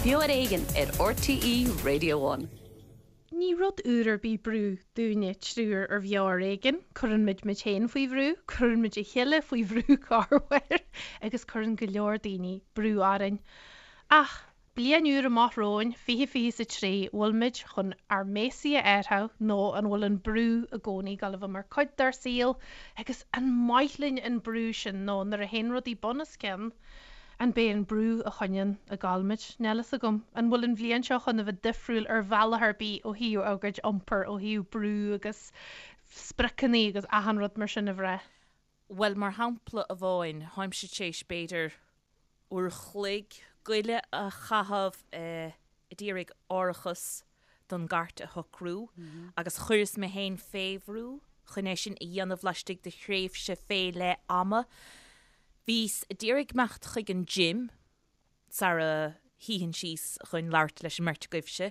Beo ar Éigean ar RTÉ Radio One. Ní rud úr ar bith brú dúinne triúr ar Bheo ar Éigean. Cuireann muid muid féin faoi bhrú, cuireann muid a chéile faoi bhrú corruair agus cuireann go leor daoine brú orainn. Ach bliain úr amach romhainn, 2023, bhfuil muid chun ár mbéasaí a athrú nó an bhfuil an brú i gcónaí ag dul a bheith mar cuid dár saol agus an maith linn an brú sin nó nuair a théann rudaí bun os cionn, An b'é an brú a choinníonn ag gabháil muid? Níl fhios agam. An bhfuil an bhliain seo chun a bheith difriúil ar bhealach ar bith ó thaobh ár gcuid iompair, ó thaobh brú agus spriocanna agus achan rud mar sin a bhrath? Bhuel, mar shampla amháin, tháimse tar éis b'fhéidir uair a chloig goile a chaitheamh a d'iarraidh árachas don gcairt a shocrú agus chuireas mé féin fé bhrú chun é sin a dhéanamh laistigh de thréimhse fé leith ama. Bhíos a d'iarraidh imeacht chuig an gym sara shuífinn síos chun labhairt leis an mbeirt agaibhse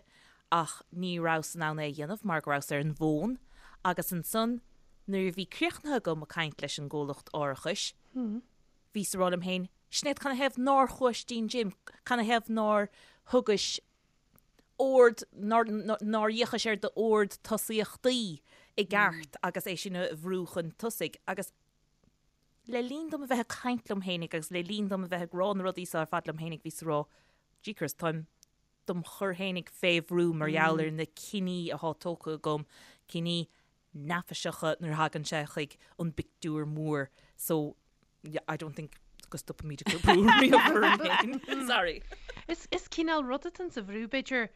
ach ní rabhas in ann é a dhéanamh mar go rabhas ar an bhfón agus ansan nuair a bhí críochnaithe agam ag caint leis an gcomhlacht árachais bhíos a rá liom féin, Sinéad, canathaobh nár chuais dtí'n gym? Canathaobh nár thugais ord, nár fhéachais ar d'ord tosaíochtaí i gceart agus é sin a bhrú chun tosaigh. Agus le linn dom a bheith ag caint liom fhéinig agus le linn dom a bheith ag rá na rudaí seo ar fad liom fhéinig, bhíos ag rá, Jeekers, táim dom chur fhéinig fé bhrú mar gheall ar na cinní athá tógtha agam, cinní neafaiseacha nuair a thagann sé chuig an bpictiúr mór so I don't think go stopfaimid ag cur brú riamh orainn féin. Sorry. Is is cineál rud atá sa bhrú b'fhéidir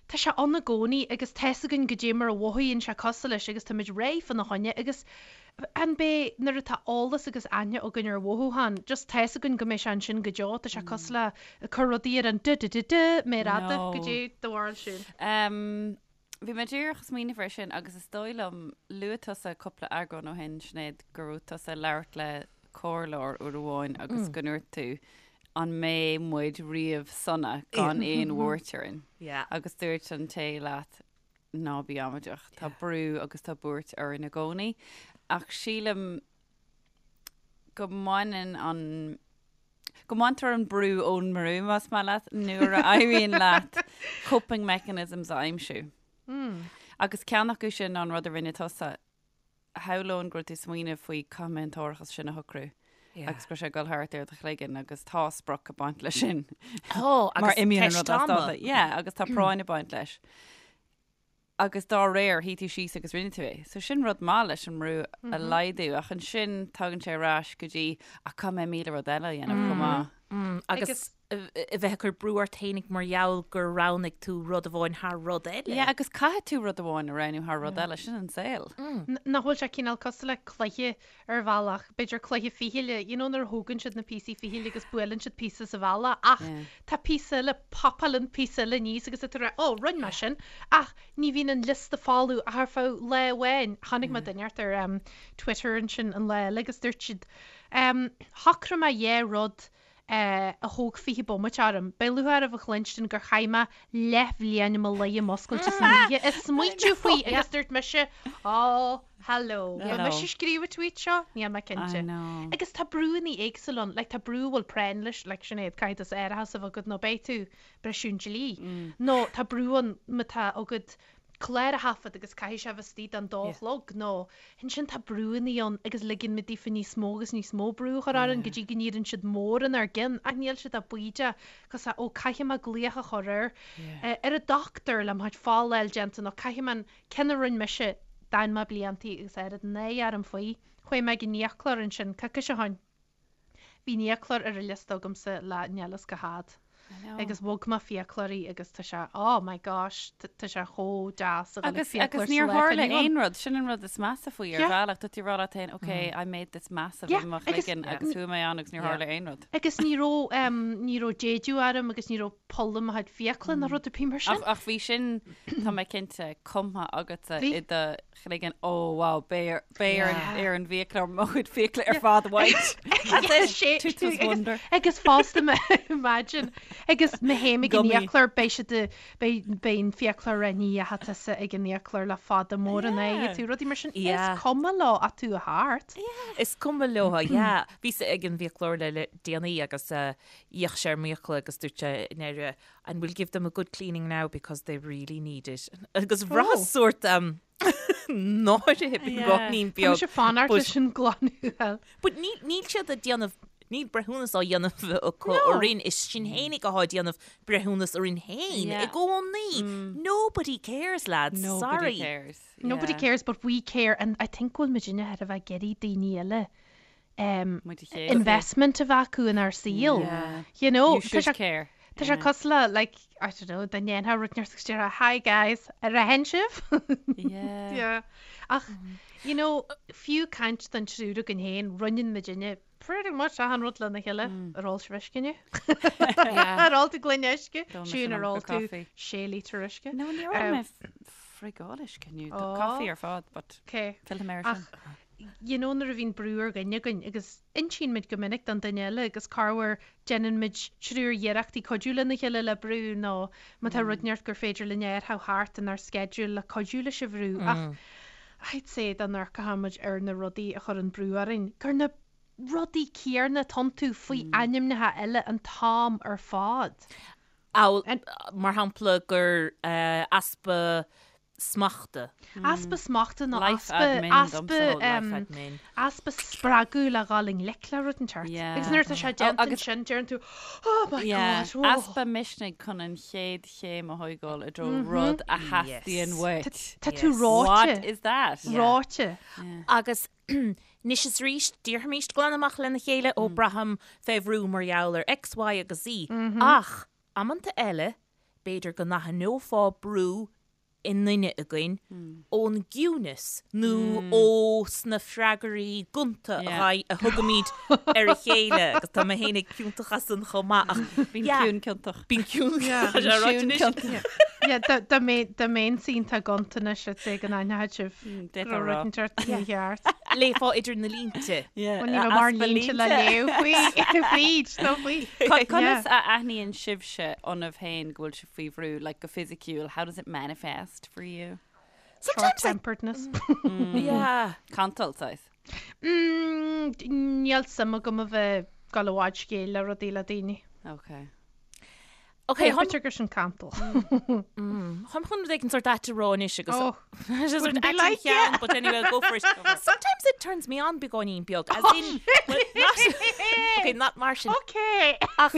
tá sé ann i gcónaí agus tá's againn goidé mar a mhothaíonn sé cosúil leis agus táimid réidh fána choinne agus an b'é nuair atá eolas agus aithne againn ar mhothúchán just tá's againn go mbeidh sé ansin go deo tá sé cosúil le ag cur rudaí ar an du du du du méar fhada No. goidé do bharúil siúd. Um, Bhí mé díreach ag smaoineamh air sin agus is dóigh liom, luaigh tusa cúpla eagrán ó shin, Sinéad, go raibh tusa ag labhairt le comhairleoir uair amháin agus go ndúirt tú, an mbeidh muid riamh sona gan aon bhuairt orainn? Agus dúirt an té leat, ná bí amaideach, tá brú agus tá buairt orainn i gcónaí. Ach sílim go mbaineann an, go mbaintear an brú ón mbrú, más maith leat, nuair a éiríonn leat coping mechanisms a aimsiú. Agus ceann acu sin ná an rud a rinne tusa. Shamhlóinn go raibh tú ag smaoineamh faoi caithfidh mé an t-árachas sin a shocrú agus go raibh sé ag dul thart ar do chloigeann agus tá sprioc ag baint leis sin. Tá, Mar agus imíonn an ceist rud as ama. dáta. Yeah, agus tá práinn ag baint leis. agus dá réir, shuigh tú síos agus rinne tú é. So sin rud maith leis an mbrú a laghdú, ach ansin tagann sé ar ais go dtí, ach caithfidh mé 1000 rud eile a dhéanamh chomh maith. Agus a bheith ag cur brú ort fhéinig mar gheall gur roghnaigh tú rud amháin thar rud eile. Yeah, agus caithfidh tú rud amháin a roghnú thar rud eile, sin an saol. Nach bhfuil sé cineál cosúil le cluiche ar bhealach, b'fhéidir cluiche fichille, you know nuair a thógann siad na píosaí fichille agus buaileann siad píosa sa bhalla ach tá píosa eile, popálann píosa eile aníos agus tá tú ag rá oh rinne mé sin ach ní bhíonn an liosta folamh ach ar feadh lá amháin. Chonaic mé duine inteacht ar em Twitter ansin an lá eile agus dúirt siad em shocraigh mé dhá rud eh a thóg 20 bomaite orm. Beidh lúcháir oraibh a chluinstin gur chaith mé leathbhliain i mo luí i m'oscailte san oíche ag smaoitiú faoi agus dúirt mise oh Hello. Ba mise a scríobh an tweet seo? Níl mé cinnte. I know. Agus tá brúanna éagsúla ann. Like tá brú a bhfuil práinn leis, like Sinéad, caithfidh tusa árachas a bheith agat nó beidh tú ag briseadh an dlí. Nó tá brú ann má tá agat clár a thaifead agus caithfidh sé a bheith istigh don dó a chlog nó ansin tá brúanna ann agus ligeann muid daofa níos mó agus níos mó brú a chur orainn go dtí go n-éiríonn siad mór inár gcinn ach níl siad ach baoideach cos ó caithfidh mé glaoch a chur ar ar an dochtúir le mo chuid folláil déanta nó caithfidh mé an Ceann a rinne mise, d'fhan mé bliantaí agus oiread náire orm faoi. Chuaigh mé ag an fhiaclóir ansin coicís ó shoin. Bhí an fhiaclóir ar an liosta agamsa le níl fhios cá fhad. Agus bhog mé fiaclóirí agus tá sé, oh my gosh, tá sé chomh deas a dhul ag Agus, fiaclóir agus sa níor lá atá tharla inniu ann. aon rud, sin an rud is measa faoi ar Yeah. bhealach, tá tú ag rá leat féin, ok, I made this massive Yeah, i mo agus- chloigeann agus chuaigh mé ann agus níor Yeah. tharla aon rud. Agus ní raibh, em, ní raibh déideadh orm agus ní raibh poll i mo chuid fiacla ná rud ar bith mar sin. Ach, ach bhí sin, tá mé cinnte, cumtha agatsa Bhí. i do. chloigeann, oh wow, beidh beidh ar an ar an bhfiaclóir mo chuid fiacla ar fad a bhaint. That's it, Tooth wonder. Agus fosta imagine agus má théim ag an fhiaclóir beidh siad beidh beidh an fiaclóir ag rá ní dheachaigh tusa ag an fhiaclóir le fada mór an aghaidh tú rudaí mar sin is cuma leo ach tú a thart. Is cuma leo, yeah. Bhíos ag an bhfiaclóir le le déanaí agus d'fhéach sé ar m'fhiacla agus dúirt sé i ndeireadh And we'll give them a good cleaning now because they really need it. Agus bhraitheas sórt náire beagáinín beag. Tá mise fanacht leis an glanadh. But níl siad ag déanamh, níl breithiúnas á dhéanamh acu orainn, is sinn fhéinig athá ag déanamh breithiúnas orainn féin i gcónaí. Nobody cares, lads, sorry. Nobody cares. Nobody cares but we care and I think go bhfuil muidinne thar a bheith ag iarraidh daoine eile investment a bheith acu inár saol. You know, You should care. Tá sé cosúil le, like, I don't know, dá ndéanfá rud inteacht agus déarfá, hi guys, ar aithin sibh? Yeah. Yeah. Ach, you know, fiú caint don triúr againn féin, roinneann muidinne pretty much achan rud lena chéile. Ar ól sibh uisce inniu? Ar ól tú gloine uisce? Siún, ar ól tú sé lítear uisce? No, níor ól mé friogal uisce inniu. Caife ar fad, but Okay. fillfidh mé air sin. Ach, you know nuair a bhíonn brú ar dhuine againn agus insíonn muid go minic don duine eile agus corruair déanann muid triúr iarrachtaí cuidiú lena chéile le brú nó má tá rud inteacht gur féidir linn a athrú thart inár sceideal le cuidiú leis an bhrú ach I'd say dá n-amharcfadh muid ar na rudaí a chuireann brú orainn gur na rudaí céanna atá iontu faoi ainmneacha eile an t-am ar fad. Amhail, mar shampla, gur easpa smachta. Easpa smachta nó easpa, easpa, easpa spreagadh le dhul i ngleic le rud inteacht. Agus nuair atá sé déanta ansin, deireann tú, oh my God, oh. Easpa misnigh chun an chéad chéim a thógáil i dtreo rud a theastaíonn uait. Tá tú reoite. What is that? Reoite. Agus anois is arís, déarfaimíst glan amach lena chéile, ó braithim fé bhrú mar gheall ar X, Y agus Z. Ach, amanta eile, b'fhéidir go n-aithneofá brú i nduine againn ón gciúnas nó ó sna freagraí gonta a thugaimid ar a chéile agus tá mé féin ag ciontach as san chomh maith ach Bíonn ciúin ciontach. Bíonn ciúin ciontach. Dá mbeinn iontach gonta anois I'd say go n-aithneodh sibh go raibh rud inteacht mícheart. Léifeá idir na línte. Bhuel ní raibh mórán línte le léamh faoi fríd nó faoi. Conas a aithníonn sibhse ionaibh féin go bhfuil sibh faoi bhrú, like go fisiciúil, how does it manifest for you? Short-temperedness. Yeah. Cantal, saghas. Mm, níl suim agam a bheith ag dul i bhfad scéil le rudaí le daoine. Okay. Okay, B'fhéidir gur sin cantal. Táim chun rud éigin sort ait a rá anois agus Oh, Just wouldn't be like it. But anyway, I'll go for it. Sometimes it turns me on beagáinín beag, as in, well, not, okay, not mar sin. Okay. Ach,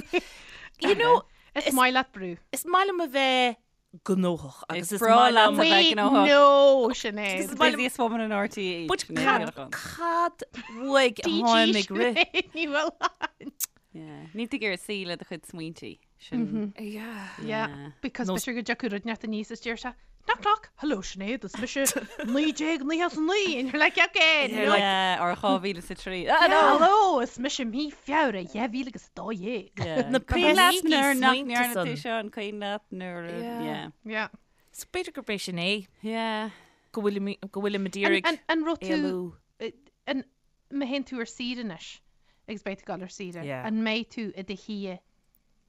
you know, Is maith leat brú. Is maith liom a bheith gnóthach agus is breá leat a bheith gnóthach. No, Sinéad. Is maith liom- Busiest woman in RTÉ. But cad, cad uaidh a tháim ag rith? Ní bhfuil ann. Yeah. Níl tú ag iarraidh suí le do chuid smaointe. Sin. Yeah. Yeah, because b'fhéidir go dtiocfadh rud inteacht aníos is deir sé, Knock knock, hello Sinéad, is mise 1999 and you're like, okay, no. Yeah, or 2003. Ah, no. Hello, is mise mí Feabhra 2012. Yeah. Na Cuimhin leat píosaí nuair nach smaointe ndearna tú san. seo an cuimhin leat nuair a- Yeah. yeah. Yeah. So b'fhéidir gurb é sin é Yeah. go bhfuilim go bhfuilim ag iarraidh An, an raibh tú, éalú. an, má théann tú ar saoire anois, agus beidh tú ag dul ar saoire, Yeah. an mbeidh tú i do shuí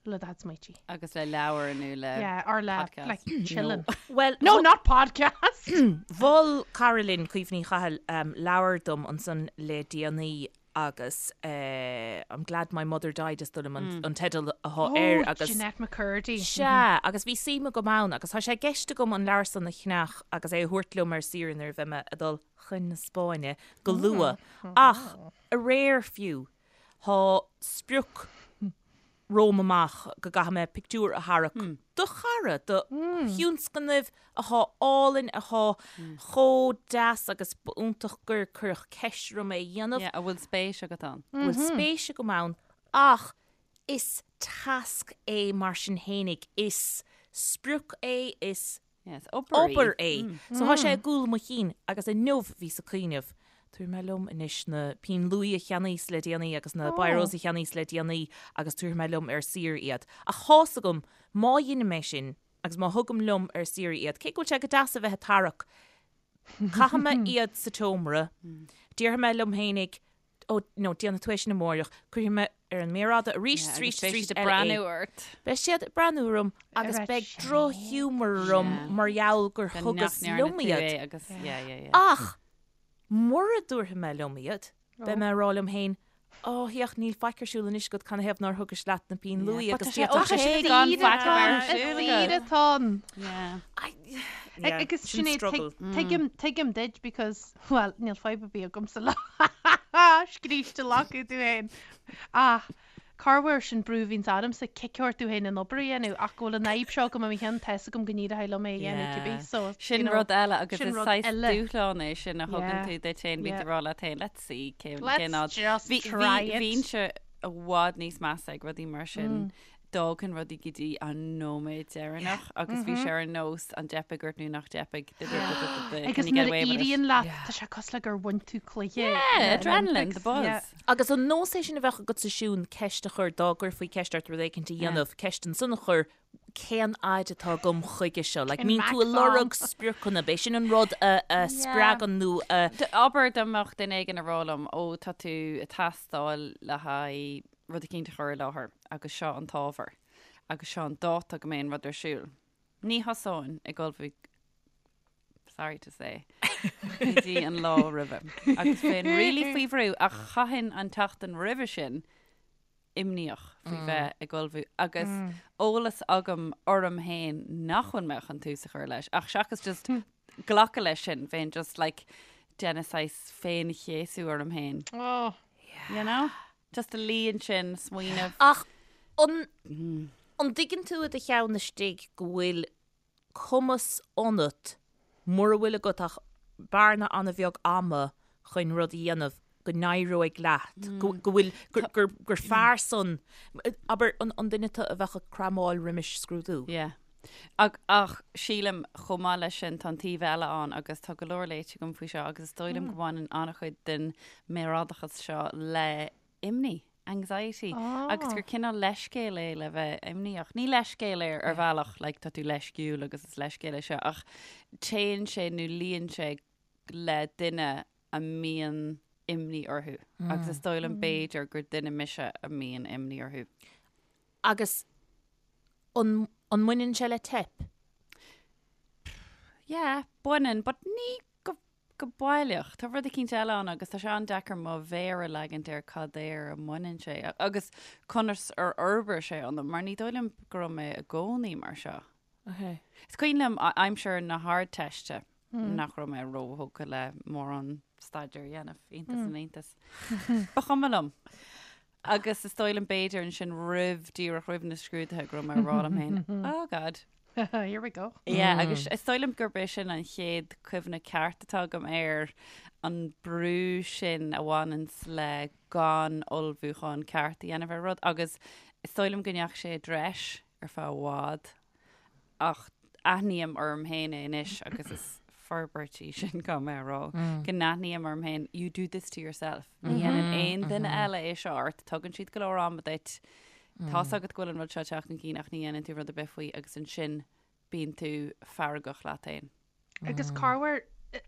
le do chuid smaointe? Agus le leabhar nó le Yeah, or le, podcast. like, chilling. Well, No, not podcast! Mhol cara linn, Caoimhe Ní Chathail, leabhar dom ansan le déanaí agus I'm Glad My Mother Died is dóigh liom an teideal athá air agus. Oh, Jennette McCurdy. Sea, agus bhí suim agam ann agus tá sé i gceist agam an leabhar san a cheannach agus é a thabhairt liom ar saoire nuair a bheidh mé ag dul chun na Spáinne go luath. Ach aréir fiú, Tá sprioc romham amach go gcaithfidh mé pictiúr a tharrac do chara, do thionscnamh athá álainn, athá chomh deas agus ba iontach gur cuireadh ceist orm é a dhéanamh. Yeah, a bhfuil spéis agat ann. A bhfuil spéis agam ann ach is tasc é mar sin fhéinig, is sprioc é, is Yes, obair í. Obair é. So tá sé i gcúl mo chinn agus inniu bhíos ag cuimhneamh, tabharfaidh mé liom anois na pinn luaidhe a cheannaíos le déanaí agus na biros a cheannaíos le déanaí agus tabharfaidh mé liom ar saoire iad. Ach tá's agam, má dheinim é sin agus má thugaim liom ar saoire iad, cé go bhfuil sé go deas a bheith ag tarrac, Caithfidh mé iad sa tseomra. Déarfaidh mé liom fhéinig, ó, no, déanfaidh tú é sin amáireach, cuirfidh mé ar an méar fhada arís, Yeah, arís, agus beidh arís siad ag eile é. breathnú ort. Beidh siad ag breathnú orm agus Ar beidh sin. drochghiúmar orm Yeah. mar gheall gur Go nach thugas ndearna liom tú iad. é agus, yeah, yeah, yeah. Ach mura dtabharfaidh mé liom iad, beidh mé ag rá liom féin, Ó, féach, níl faic ar siúl anois agat, canathaobh nár thugais leat na pinn luaidhe But agus tá sé d'fhéadfadh ok sé gan faic a bheith ar Is siúl saoire agat. atá ann. Yeah. Yeah, Agus sin Sinéad, struggle. tuigim, tuigim duit because, well, níl fadhb ar bith agamsa le scríste lacadh tú féin. Ach corruair sin brú a bhíonns ormsa cic ort tú féin an obair a dhéanamh ach go bhfuil an fhadhb seo agam i mo cheann tá 'fhios agam go n-éireoidh liom é a dhéanamh Yeah. cibé so you Sin know, rud eile agus sin is rud saghas eile. dúshlán é sin a thugann Yeah. tú duit féin, bíonn Yeah. tú ag rá leat féin, let's see cén Let's cén fhad. just Bhí try bhí it. bhínnse i bhfad níos measa ag rudaí mar sin. D'fhágfainn rudaí go dtí an nóiméad deireanach agus bhí sé ar nós an dteipfidh ort nó nach dteipfidh. Agus nuair a éiríonn leat, tá sé cosúil le gur bhain tú cluiche. Yeah, adrenaline, the buzz. Agus an nós é sin a bheadh agatsa Siún ceist a chur dá gcuirfí ceist ort rud éicint a dhéanamh, ceist ansan a chur, cén fhaid atá agam chuige seo? Like, mbíonn tú ag lorg spriocanna, b'é sin an rud a spreagann nó a. Abair dá mbeadh duine éigin ag rá liom, ó tá tú ag teastáil le haghaidh rud eicínt a chur i láthair agus seo an t-ábhar agus seo an dáta go mbeidh an rud ar siúl. Ní thosóinn ag ullmhú, sorry to say, go dtí an lá roimhe. Agus bheinn really faoi bhrú ach chaithfinn an tseachtain roimhe sin imníoch faoi bheith ag ullmhú agus eolas agam orm féin nach bhfuil mé chun tús a chur leis ach seachas just glacadh leis sin, bheinn just like déanamh saghas féin-chéasú orm féin. Oh. You know? Just a luí ansin, smaoineamh. Ach an an dtuigeann tú i do cheann istigh go bhfuil cumas ionat, mura bhfuil agat ach bearna an-bheag ama chun rud a dhéanamh, go n-éireoidh leat, go go bhfuil, gur gur gur fearr san, abair, an an duine tú a bheadh ag cramáil roimis scrúdú? Yeah. Ach ach sílim chomh maith leis sin tá an taobh eile ann agus tá go leor léite agam faoi seo agus is dóigh liom go mbaineann an-chuid den méarfhadachas seo le imní, anxiety, agus gur cineál leithscéal é le bheith imníoch. Ní leithscéal é ar bhealach like tá tú leisciúil agus is leithscéal é seo ach téann sé nó luíonn sé le duine a mbíonn imní orthu agus is dóigh liom b'fhéidir gur duine mise a mbíonn imní orthu. Agus an an mbaineann sé le teip? Yeah, baineann, but ní go go baileach. Tá rud eicínt eile ann agus tá sé an-deacair mo mhéar a leagaint ar cad air a mbaineann sé agus conas ar fhorbair sé ionam, mar ní dóigh liom go raibh mé i gcónaí mar seo. Okay. Is cuimhin liom aimsir na hArdteiste nach raibh mé róthógtha le mórán staidéir a dhéanamh, iontas na n-iontas. Ba chuma liom. Agus is dóigh liom b'fhéidir ansin roimh, díreach roimh na scrúduithe go raibh mé ag rá liom féin, oh God. Here we go. Yeah, agus is dóigh liom gurb é sin an chéad cuimhne ceart atá agam ar an brú sin a bhaineanns le gan ullmhúchán ceart a dhéanamh ar rud agus is dóigh liom go ndeachaigh sé i dtreis ar feadh i bhfad. Ach aithním orm féin é anois agus is forbairt í sin go mé a rá, go n-aithním orm féin, you do this to yourself. Ní dhéanann aon duine eile é seo ort, tugann siad go leor ama duit, tá's agat go bhfuil an rud seo ag teacht chun cinn ach ní dhéanann tú rud ar bith faoi agus ansin bíonn tú feargach leat féin. Agus corruair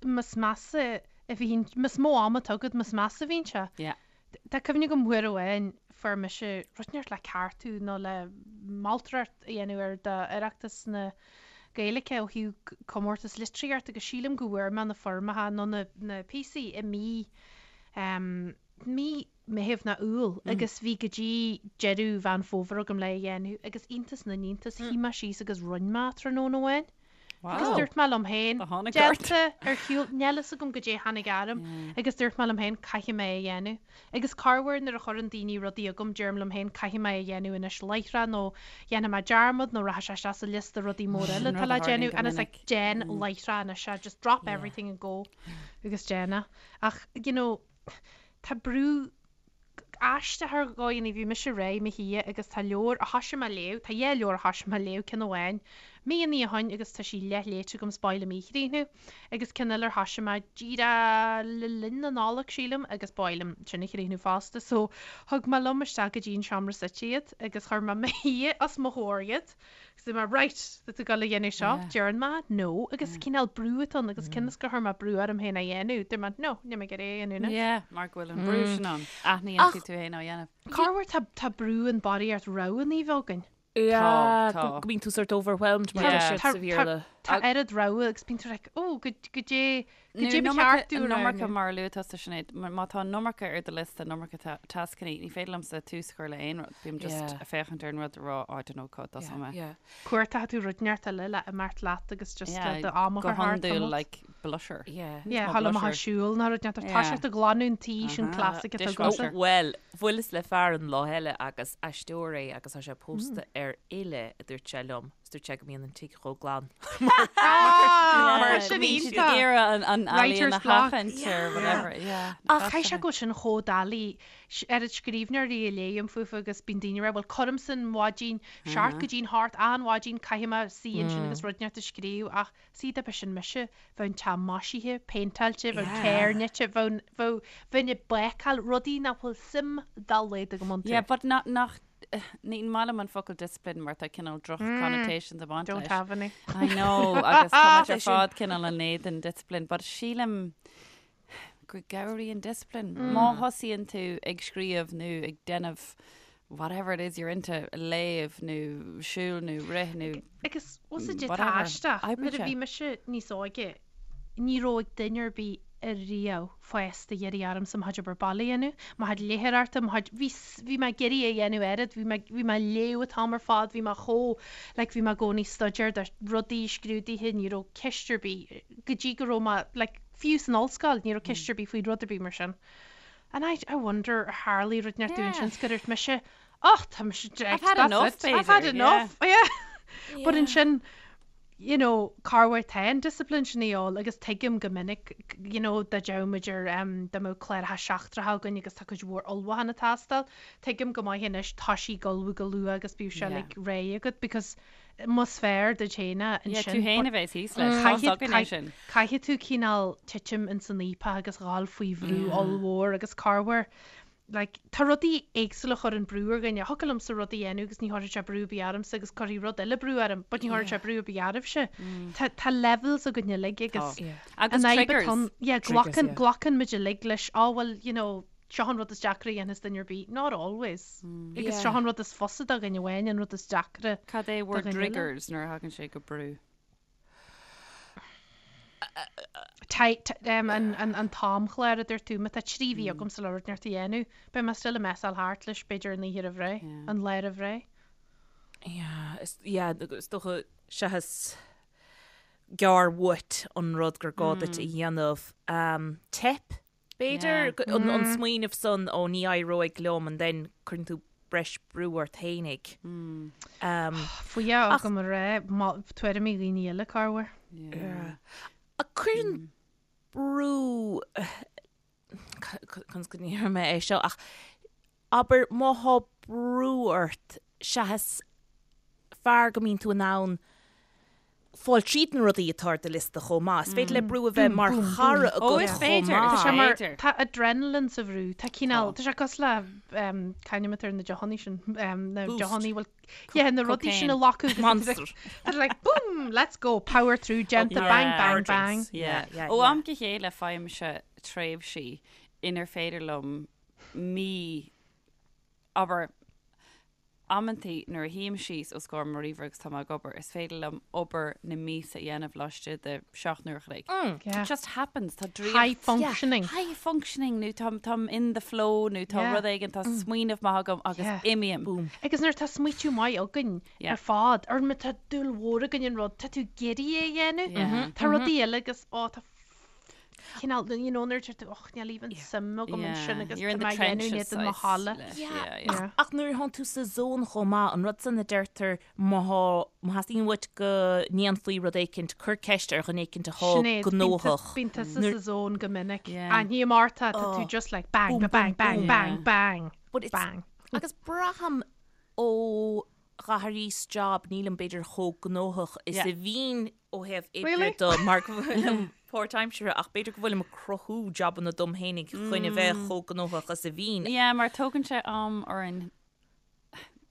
más measa a bhíonn, más mó ama atá agat, más measa a bhíonn sé. Yeah. Tá cuimhne agam uair amháin fuair mise rud inteacht le ceartú nó le moltóireacht a dhéanamh air d'Oireachtas na Gaeilge ó thaobh comórtas litríochta agus sílim go bhfuair mé na foirmeacha nó na na píosaí i mí mí Meitheamh nó Iúil agus bhí go dtí deireadh Mheán Fómhair agam le é a dhéanamh agus iontas na n-iontas shuigh mé síos agus rinne mé tráthnóna amháin. Agus dúirt mé liom féin, déanta ar shiúl, níl fhios agam goidé tháinig orm, agus dúirt mé liom féin, caithfidh mé é a dhéanamh. Agus corruair nuair a chuireann daoine rudaí chugam, deirim liom féin, caithfidh mé é a dhéanamh anois láithreach nó dhéanfaidh mé dearmad nó rachaidh sé isteach sa liosta rudaí móra eile atá le déanamh and it's like, déan láithreach anois é, just drop everything and go agus déan é. Ach, you know, tá brú aisteach ar dhóigheanna. Bhí mise réidh i mo shuí agus tá leabhar a thoisigh mé a léamh, tá dhá leabhar a thoisigh mé a léamh, ceann amháin. Míonna ó shoin agus tá sí leath-léite agam 's b'áil liom í a chríochnú. Agus ceann eile ar thoisigh mé díreach le linn na Nollag, sílim, agus b'áil liom sin a chríochnú fosta. So, thug mé liom isteach go dtí an seomra suite iad agus chuir mé 'mo shuí os mo chomhair iad. Agus dúirt mé, right, tá tú ag dul a dhéanamh seo? Deireann mé, no. Agus cineál brú atá ann agus cionn is gur chuir mé brú orm féin é a dhéanamh, dúirt mé, no, níl mé ag iarraidh é a dhéanamh anois. Yeah, mar go bhfuil an brú sin ann. Aithníonn tú tú féin á dhéanamh. Corruair tá tá brú an barraíocht roghanna a bheith againn. Yeah, Tá, tá. go mbíonn tú sort overwhelmed mar Yeah. deir siad sa Bhéarla. Tá oiread rogha agus bíonn tú like, oh, go go dté go Nó dté ba an iomarca- cheart tú an iomarca roghnú. mar a luaigh tusa Sinéad, má má tá an iomarca ar do liosta, an iomarca ta- tascanna, ní féidir liomsa tús a chur le aon rud. Bím just Yeah. ag féachaint ar an rud a rá, oh, I don't know cá dtosóidh mé. Yeah. Cuartaíonn tú rud inteacht eile le imeacht leat agus just Yeah, le do am a go chur thart hiondúil tamalt. like blusher. Yeah. Yeah, Tá thá le maith blusher. siúl ná rud inteacht. Tá Yeah. sé ag glanadh an tí sin Uh-huh. classic atá Dishwasher. agamsa. Bhuel, bhuaileas le fear an lá eile agus aisteoir é agus tá sé pósta ar fhile, a dúirt sé liom. Is dúirt sé go mbíonn an tigh chomh glan. Ah, Mar sin go mbíonn siad iontach. ag iarraidh an an ealaíon Writer's a block. sheachaint or whatever. Yeah. Ach caithfidh sé go bhfuil sin chomh doiligh. Oiread scríbhneoirí a léim fúthu agus bíonn daoine ag rá, bhuel cuirimse an mhaidin, seacht go dtí'n hocht an mhaidin, caithfidh mé suí ansin agus rud inteacht a scríobh ach see dá mba sin mise, bheadh an teach maisithe, péinteáilte, bheadh an carr nite, bheadh, bheadh, bheinn ag bácáil, rudaí nach bhfuil suim dá laghad agam iontu. Yeah, but nach, nach, ní maith liom an focal discipline mar tá cineál droch connotations ag baint Don't leis. have any. I know, agus tá muid ar fad cineál in éadan discipline, but sílim go gcabhraíonn discipline. Má thosaíonn tú ag scríobh nó ag déanamh whatever it is you're into, léamh nó siúl nó rith nó Agus bhfuil a fhios agat tá whatever, aisteach, oibrigh nuair a sé. bhí mise níos óige, ní raibh ag duine ar bith ariamh fásta iarraidh ormsa mo chuid obair baile a dhéanamh, mo chuid léitheoireachta, mo chuid, bhí, bhí mé ag iarraidh a dhéanamh oiread, bhí mé, bhí mé ag léamh an t-am ar fad, bhí mé chomh, like bhí mé i gcónaí ag staidéar do rudaí, scrúduithe, ní raibh ceist ar bith, go dtí go raibh mé, like fiú san ollscoil, ní raibh ceist ar bith faoi rud ar bith mar sin. And I, I wonder ar tharlaigh rud inteacht domh ansin 's gur dhúirt mise, Och, tá mise I've drecht, had that's enough, it. I've had b'fhéidir, enough, yeah. But ansin, you know, corruair tá an discipline sin a dhíobháil agus tuigim go minic, you know, dá dteadh muid ar, em, dá mbeadh cláracha seachtracha againn agus tá cuid mhór ullmhúchán ag teastáil, tuigim go maith anois tá sí ag ullmhú go luath agus bíodh sé Yeah. like réidh agat because más fearr duit féin é Yeah, tú ansin, féin but a bheas thíos leis, tá caithfidh, againn é sin. caithfidh tú cineál titim ins an fhaopach agus dhul faoi bhrú ollmhór agus corruair like, tá rudaí éagsúla a chuireann brú ar dhuine. Thiocfadh liomsa rud a dhéanamh agus ní chuirfeadh sé brú ar bith ormsa agus cuirfidh rud eile brú orm, but ní chuirfeadh sé brú ar bith oraibhse. Tá, tá levels againn uilig agus Yeah. Agus an fhadhb triggers. atá ann, yeah, Triggers, glacann, yeah. glacann muid uilig leis, oh well, you know, seo an rud is deacra a dhéanfas duine ar bith. Not always. Agus Yeah. seo an rud is fusa do dhuine amháin, an rud is deacra Cad é bhur do dhuine eile. dtriggers nuair a thagann sé go brú? An t-amchlár a dúirt tú, má tá 3 mhí agamsa le rud inteacht a dhéanamh, beidh mé still ag messáil thart leis b'fhéidir an oíche roimh ré, an lá roimh ré. Yeah, is, yeah, is dócha seachas gearr uait an rud gur gá duit a dhéanamh. Teip B'fhéidir an smaoineamh san ó ní éireoidh liom and then cuireann tú breis brú ort fhéinig. Fuath agam a rá tuairimí dhaoine eile corruair. Ach cuireann brú, conas go ndéarfaidh mé é seo ach abair má thá brú ort seachas fearr go mbíonn tú in ann fáil tríd na rudaí atá ar do liosta chomh maith. Is féidir le brú a bheith mar chara agat chomh maith. Tá sé mar, tá adrenaline sa bhrú, tá cineál, tá sé cosúil le, c'ainm atá ar na deochannaí sin, na deochannaí bhfuil, yeah, na rudaí sin a ghlacadh agus Monster. Tá like boom, let's go, power through, déanta, bang, bang, bang. Yeah. Ó am go chéile faighimse tréimhsí inar féidir liom mí, abair, Amantaí nuair a shuím síos os comhair mo ríomhaire agus tá mé ag obair, is féidir liom obair na míosa a dhéanamh laistigh de 7 n-uair a chloig. It just happens. Tá draíocht. High functioning. High functioning nó tá táim in the flow nó tá rud éigin, tá smaoineamh maith agam agus imím. Boom. Agus nuair atá smaoitiú maith againn ar fad, or má tá dúil mhór againn in rud, tá tú ag iarraidh é a dhéanamh. Tá rudaí eile agus, ó, tá cineál, you know, nuair a deir tú, och, níl even suim agam ansin agus You're in tá the mé á dhéanamh in trenches éadan mo saghas thola. leis, Yeah. yeah, yeah. Yeah. Ach nuair atánn tú sa zone chomh maith, an rud san a deirtear má thá, má theastaíonn uait go ndéanfaí rud éicint, cuir ceist ar dhuine éicint athá Sinéad, bíonn gnóthach. Bíonn tusa sa zone go minic. Yeah. Aithním ort, tá tú just like bang, Boom, ba bang, boom, bang, boom. bang, bang, But it's- bang. Agus braithim ó. D'athraíos job, nílim b'fhéidir chomh gnóthach is Yeah. a bhínn ó thaobh oibre Really? de mar go bhfuilim páirtaimseartha ach b'fhéidir go bhfuilim ag cruthú jabanna dom fhéinig chun a bheith chomh gnóthach is a bhínn. Yeah, mar tógann sé am orainn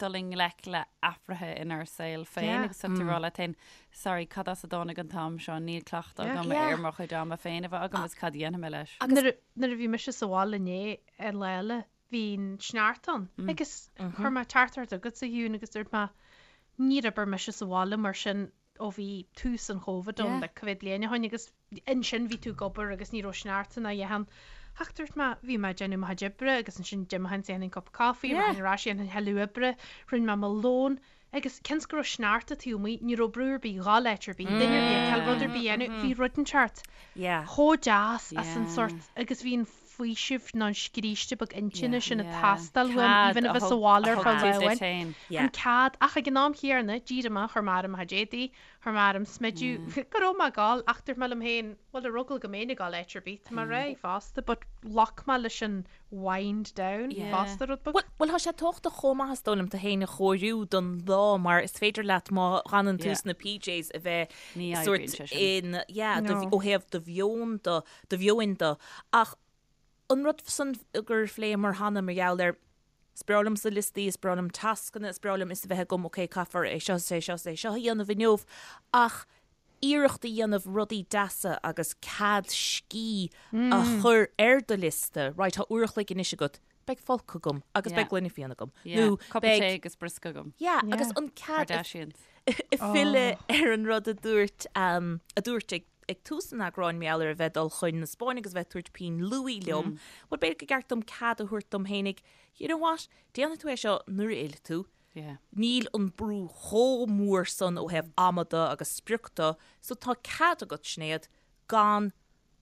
dul i ngleic le athruithe inár saol féin Yeah. agus tá tú ag rá leat féin, sorry, cad as a dtáinig an t-am seo, níl cleachtadh Yeah. agam Yeah. ar mo chuid ama féin a bheith agam agus cad a dhéanfaidh mé leis. Nuair a- nuair a bhí mise sa bhaile inné ar lá eile, bhí an sneachta ann agus chuir mé teachtaireacht chugat a Shiún agus dúirt mé níor oibir mise sa bhaile mar sin ó bhí tús an Chóvid ann like cá mhéad bliain ó shin agus ansin bhí tú ag obair agus ní raibh sneachta ná a dhath ann. Ach dúirt mé bhí mé ag déanamh mo chuid oibre agus ansin d'imigh dhéanfainn cup coffee yeah. ar ais dhéanfainn thuilleadh oibre, rinne mé mo lón agus cionn is go raibh sneachta taobh amuigh ní raibh brú ar bith dhul áit ar bith, duine ar bith ag cail rud ar bith a dhéanamh, bhí rud inteacht chomh deas as an sort agus bhí an faoiseamh nó an scríste beag intinne sin ag teastáil uaim, even a bheith sa bhaile ar feadh lá amháin. An cead, ach ag an am chéanna, d'éirigh mé, chuir mé orm mo chuid éadaí, chuir mé orm smideadh, go raibh mé ag gabháil, ach dúirt mé liom féin, bhuel, ar eagla go mbeinn ag gabháil áit ar bith, tá mé réidh fosta, but ghlac mé leis an wind down fosta rud beag. Bhuel, tá sé tábhachtach chomh maith is dóigh liom tú féin a chóiriú don lá mar is féidir leat má fhanann tú sna PJs a bheith sort in, yeah, ó thaobh do mheon do, do mheoin de. Ach an rud san gur phléamar cheana mar gheall ar, is breá liomsa liostaí, is breá liom tascanna, is breá liom fhios a bheith agam, ok, caithfear é seo is é seo is é seo a dhéanamh inniu, ach iarracht a dhéanamh rudaí deasa agus cead scíth a chur ar do liosta, right, tá uair a chloig anois agat, beidh folcadh agam agus beidh gloine fíona agam. Nó beidh tae agus briosca agam. Yeah, agus an cead a filleadh ar an rud a dúirt, a dúirt ag ag tús an eagráin mar gheall ar a bheith ag dul chun na Spáinne agus a bheith ag tabhairt pinn luaidhe liom, bhuel b'fhéidir gur ceart dom cead a thabhairt dom fhéinig, you know what, déanfaidh tú é seo nuair a fhillfidh tú, níl an brú chomh mór san ó thaobh ama de agus sprioc de, so tá cead agat, Sinéad, gan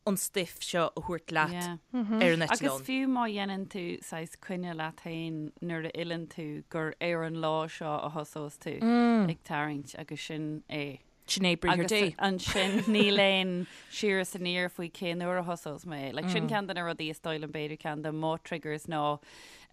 an stuif seo a thabhairt leat ar an Agus eitleán. fiú má dhéanann tú saghas coinne leat féin nuair a fhilleann tú gur ar an lá seo a thosós tú ag tarraingt agus sin é. Sin é briathar Agus Dé. ansin níl aon siar is aniar faoi cén uair a thosós mé. Like, sin ceann de na rudaí is dóigh liom b'fhéidir ceann de mo triggers ná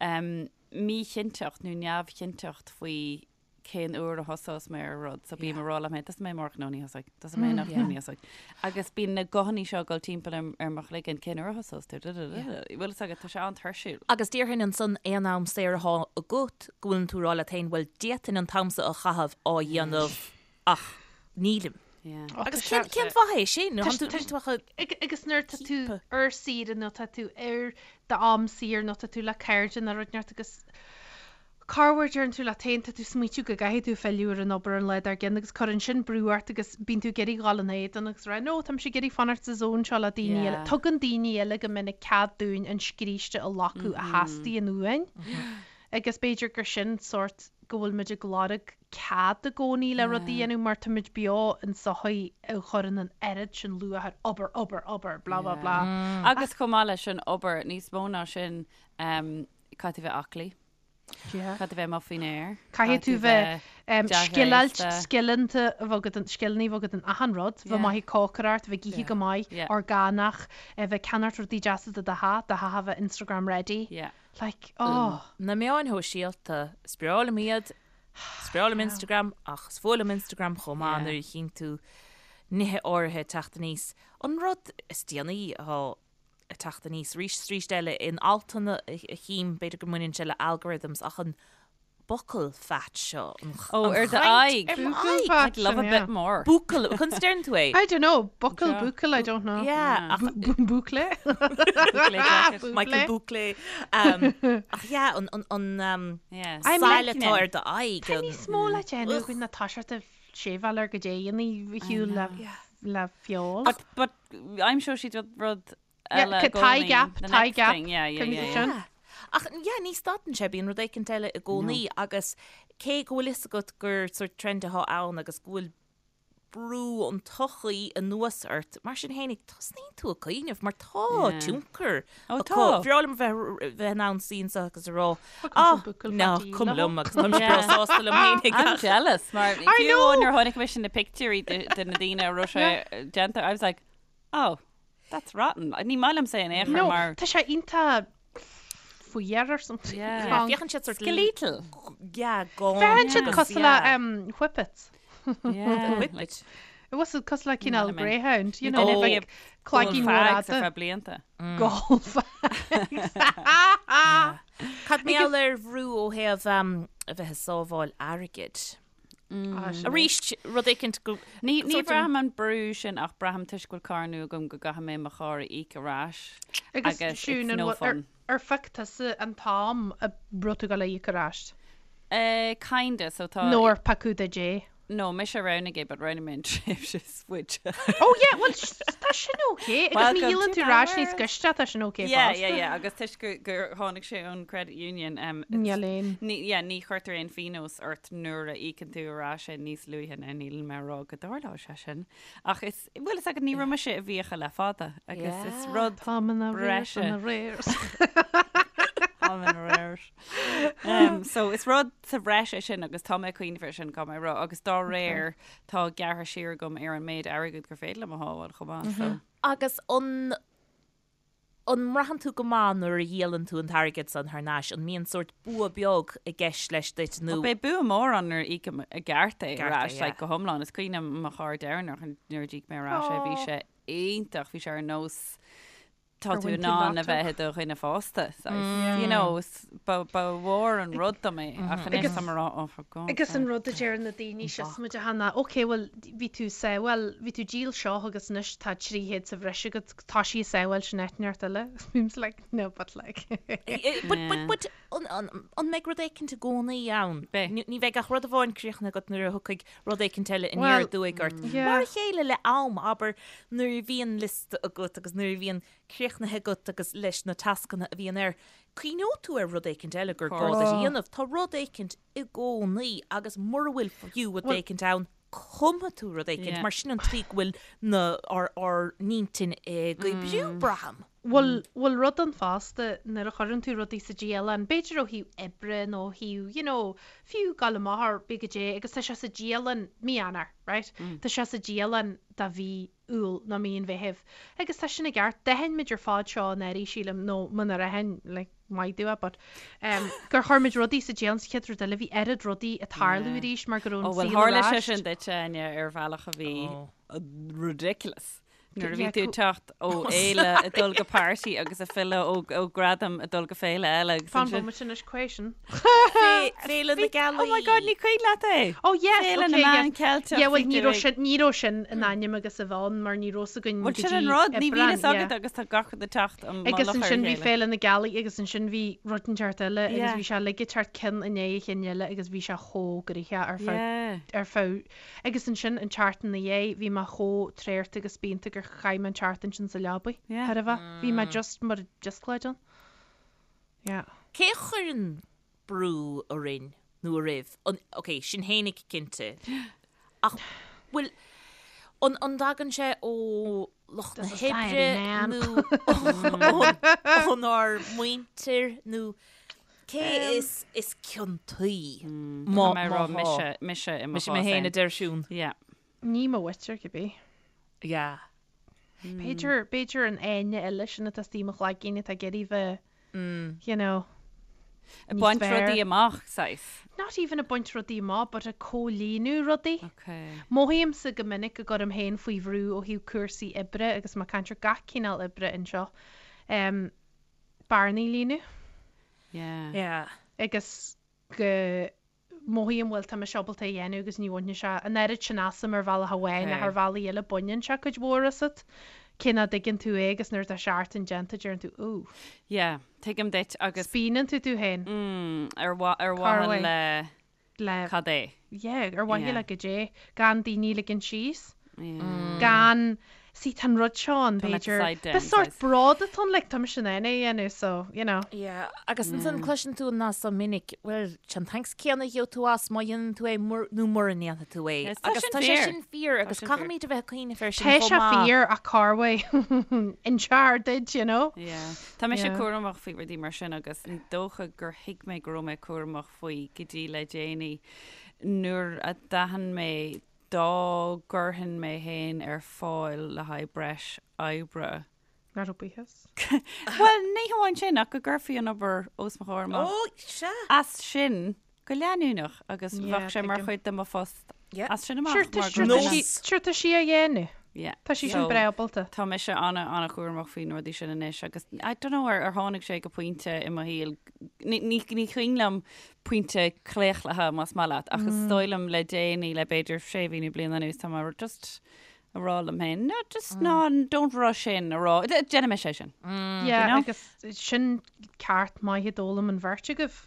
um, míchinnteacht nó neamhchinnteacht faoi cén uair a thosós mé ar rud. So bím ag rá liom féin, tosóidh mé amárach, no ní thosóidh, tosóidh mé anocht, no ní thosóidh. Agus bíonn na guthanna seo ag dul timpeall ar, ar mo chloigeann, cén uair a thosós tú? Bhfuil fhios agat, tá sé an-tuirsiúil. Agus déarfainn ansan aon am saor atá agat go bhfuileann tú ag rá leat féin, bhuel d'fhéadfainn an t-am seo a chaitheamh á dhéanamh Ach nílim. Yeah. Agus cén cén fáth é sin? Tá tú tá tú ach a- Agus nuair tá tú ar saoire nó tá tú ar d'am saor nó tá tú le cairde nó rud inteacht agus corruair deireann tú leat féin tá tú smaoitiú go gcaithfidh tú filleadh ar an obair an lá dár gcionn agus cuireann sin brú ort agus bíonn tú ag iarraidh dhul ina éadan agus rá no tá mise ag iarraidh fanacht sa zone seo le daoine eile. Yeah. Tugann daoine eile go minic cead dúinn an scríste a ghlacadh a theastaíonn uainn. Agus b'fhéidir gur sin sórt go bhfuil muid ag lorg cead i gcónaí le rud a dhéanamh mar táimid beo in sochaí a chuireann an oiread sin luach ar obair, obair, obair, blah blah blah. Agus chomh maith leis an obair, níos mó ná sin, caithfidh tú bheith aclaí, caithfidh tú bheith amuigh faoin aer, Caithfidh tú bheith scileáilte, dea-ghléasta. scileanta a bheith agat, scileanna a bheith agat in achan rud, bheith maith ag cócaireacht, bheith ag ithe go maith, orgánach, bheith ag ceannacht rudaí deasa do do theach, do theach a bheith Instagram ready. Like, oh. Na meáin shóisialta, is breá liom iad, is breá liom Instagram, ach is fuath liom Instagram chomh maith nuair a chíonn tú nithe áirithe ag teacht aníos. An rud is déanaí atá ag teacht aníos arís is arís eile in altanna a chím, b'fhéidir go mbaineann sé le algorithms, ach an buccal fat seo, an Ó, ar do chaint aghaidh. ar mo Buccal aghaidh. fat I'd love a sin, bit yeah. more. Buccal, conas a deireann tú é? I don't know, buccal, Yeah. buccal, I don't know. Yeah, ach Boucle? Boucle jacket. Michael Buckley. Um, ach yeah, an, an, an um, Yeah. I'm sail liking atá it. ar do aghaidh. Tá an- níos mó le déanamh againn ná toiseacht ag seiveáil ar goidé a dhéanamh a shiúl le le feoil. But, but aimseoidh siad rud, rud Yeah, eile c- i tie gcónaí. gap, The tie next gap. thing, Yeah, yeah, Can you yeah, do yeah. sin? Ach yeah, ní stadann sé, bíonn rud éicint eile i gcónaí agus cé go bhfuil fhios agat gur sort trend atá ann agus go bhfuil brú an tsochaí anuas ort, mar sin fhéinig, tosnaíonn tú ag cuimhneamh mar tá Yeah. tionchar Ó, acu. tá. Bhreá liom bheith bheith in ann suí anseo agus a rá, Fucking ah, buccal ná, fatty cuma leo. liom agus táim breá Yeah. sásta liom fhéinig. I'm jealous mar I fiú know. nuair a chonaic mise na pictiúirí de de na daoine a raibh sé déanta, I was like, oh, that's rotten. Ní maith liomsa in aon chor No, mar tá sé iontach. faoi or something. Yeah. Yeah, féachann siad sort Skeletal. Yeah, gone. Féachann siad agus, cosúil le yeah. um, whippets. Yeah. Whippet. It was cosúil le cineál Ní greyhound, you know, Oh. like cloigín mór Fags ar fhada. feadh blianta. Gall fags. Cad mar gheall ar bhrú ó thaobh um, a bheith ag sábháil airgid? Ah, sin é. Arís, rud éicint go... Ní ní Sort of- bhraithim an brú sin ach braithim toisc go bhfuil carr nua agam go gcaithfidh mé mo charr a íoc ar ais. Agus Agus Siún, it's an no bhfuil- ar fun. ar phioc tusa an t-am a raibh tú ag dul a íoc ar ais? Eh, kinda, so tá... Nó ar piocadh duit é? No, mise a roghnaigh é, but roghnaigh mé an tréimhse is faide. Oh yeah, well tá sin ok. Agus Welcome má dhíolann to tú my ar ais níos world. gaiste tá sin ok Yeah, fosta. yeah, yeah, agus toisc gur, gur tháinig sé ón credit union, um, Níl aon. Ní, yeah, ní chuirtear aon phionós ort nuair a íocann tú ar ais é níos luaithe ná níl mé ag rá go dtarlóidh sé sin. Ach is, bhuel, is agat ní raibh mise i bhfiacha le fada agus is rud Táim in arrears breise. in arrears. Táim in arrears. Um, so is rud sa bhreis é sin agus tá mé ag cuimhneamh air sin gan mé rá agus dá réir tá gearrtha siar agam ar an méid airgid gur féidir liom a shábháil chomh maith. So. Agus an an mbraitheann tú go maith nuair a dhíolann tú an t-airgead san thar n-ais? An mbíonn sórt bua beag i gceist leis duit nó? Beidh bua mór ann nuair a íocaim i gceart é Ceart ar é, ais, yeah. like, go hiomlán. Is cuimhin liom mo charr deireanach nuair a d'íoc mé ar ais é, bhí sé iontach, bhí sé ar nós tá Gur tú bhain in tú ann a lotto. bheith i do dhuine fásta, saghas. You know, is- ba ba mhór an rud dom é, ach anois Agus- tá mé ag rá, oh, for God's Agus an sake. rud a deir na daoine seo muid a hana, ok, well, bhí tú sábháil, bhí tú díol seo agus anois tá 300 sa bhreis agat, tá sí sábháil sin eitneart eile. Bím's like, no, but like. But, but, but, an, an, an mbeidh rud éicint i gcónaí ann? Beidh. Ní ní bheidh ach rud amháin críochnaithe agat nuair a thiocfaidh rud éicint eile aniar Well, aduaidh ort. yeah. Mar a chéile le am, abair, nuair a bhíonn liosta agat agus nuair a bhíonn críochnaithe agat agus leis na tascanna a bhíonn air, cuimhneoidh tú ar rud éicint eile gur gá duit a dhéanamh. Tá rud éicint i gcónaí agus mura bhfuil fiú rud éicint ann, cumfaidh tú rud éicint, Yeah. mar sin an tslí go bhfuil na ár ár n-intinn ag oibriú, braithim. Bhfuil bhfuil rud ann fosta nuair a chuireann tú rudaí sa dialann, b'fhéidir ó thaobh oibre nó ó thaobh, you know, fiú gabháil amach ar bith goidé, agus tá sé sa dialann mí Eanáir, right? Tá sé sa dialann do mhí Iúil nó mí an Mheithimh. Agus tá sin i gceart, d'aithin muid ar fad seo anuraidh, sílim, nó munar aithin, like, maith domh, but, um, gur chuir muid rudaí sa dialann sa chéad rud eile, bhí oiread rudaí ag tarlú Yeah. arís mar go raibh Ó, an bhuel, saol tharla ar sé ais. sin duit, Áine, ar bhealach a bhí Oh. ridiculous. Nuair a bhí Yeah, tú ag teacht ó fhéile ag dul go party agus ag filleadh ó ó gradam ag dul go féile eile agus Fan ansin bomaite anois question. Féile na Gealaí. Oh my God, ní cuimhin leat é! Oh yes, Féile na okay, Meán yes. Ceilteach Yeah, well, bhí ní tú raibh ag- sin ní raibh sin in ainm agus a bheith ann mar ní raibh 's againn Bhuel go sin dtí an rud, ní bhíonn Aibreán, fhios agat yeah. agus tá gach rud ag teacht an Agus mullach ar a ansin bhí chéile. Féile na Gealaí agus ansin bhí rud inteacht eile agus Yeah. bhí sé uilig ag teacht ceann i ndiaidh a chinn eile agus bhí sé chomh gnoitheach ar feadh Yeah. ar feadh agus ansin an tseachtain ina dhiaidh bhí mé chomh traorta agus spíonta gur chaith mé an tseachtain sin sa leabaidh. Yeah. Thar a bheith. Bhí mé just mar díosclaid ann. Yeah. Cé a chuireann brú orainn nó oraibh? An, ok, sinn fhéinig cinnte. Ach bhfuil an an dtagann sé ó lucht na The society, hoibre man. nó ón ónár muintir nó cé is is ciontaí má Tá mé ag rá má thá? mise mise i mo Mise mé chás féin féin. a deir Siún. Yeah. Ní mo mhuintir cibé. Yeah. B'fhéidir b'fhéidir an éinne eile sin atá istigh i mo chloigeann atá ag iarraidh bheith you know, Ag níos baint fearr. rudaí amach, saghas. Not even ag baint rudaí amach, but ag comhlíonadh rudaí. Okay. Mothaímse go minic go gcuirim féin faoi bhrú ó thaobh cúrsaí oibre agus má caint ar gach cineál oibre anseo. Um, bearnaí a líonadh Yeah. Yeah. agus go mothaím bhuel tá mise ábalta é a dhéanamh agus ní bhaineann sé an oiread sin asam ar bhealach amháin ach Okay. ar bhealaí eile baineann sé cuid mhór asat. Cé nach dtuigeann tú é agus nuair atá seachtain déanta deireann tú ooh. Yeah, tuigim duit agus Spíonann tú tú féin mm, ar mha- ar Cá mhaithe raibh? le le cad é. yeah, ar mhaithe Yeah. le goidé gan daoine ligean síos. Yeah. Gan see tá an rud seo ann Don't let the b'fhéidir. side down, Ba sórt saghas. bród atá ann, like, tá mise in ann é a dhéanamh so, you know. Yeah, agus ansan cloiseann tú an nath so minic, well, an thanks céanna a gheobhaidh tú as má dhéanann tú é mur, nó mura ndéanfaidh tú é. Yes, tá Agus sin tá sé fíor. sin fíor agus sin fíor. caithfimid a bheith ag cuimhneamh air sin Tá chomh sé maith. fíor ach cá bhfuil insear duit, you know? Yeah. Tá mise Yeah. cúramach faoi rudaí mar sin agus ní dócha gur thuig mé go raibh mé cúramach faoi go dtí le déanaí nuair a d'aithin mé dá gcuirfinn mé féin ar fáil le haghaidh breis oibre. Nach raibh buíochas? Bhuel, ní hamháin sin, ach go gcuirfí an obair os mo chomhair amach. Ó, sea. As sin go leanúnach agus Yeah, bheadh sé mar tuigim. chuid de mo phost Yeah. as sin amach. Sure, tá mar sure, go tá mbeadh- sí- sure, tá sí á dhéanamh. Yeah. Tá sí sin So, breá ábalta. Tá mise ana ana-chúramach faoi na rudaí sin anois agus I don't know ar ar tháinig sé go pointe i mo shaol ní ní ní cuimhin liom pointe claochlaithe más maith leat ach is dóigh liom le déanaí le b'fhéidir sé mhí nó bliain anuas tá mé just a rá liom féin, no, just ná, don't rush in, a rá, déanfaidh mise é sin. Yeah, You know? agus sin ceart maith a d'fhoghlaim an bheirt agaibh,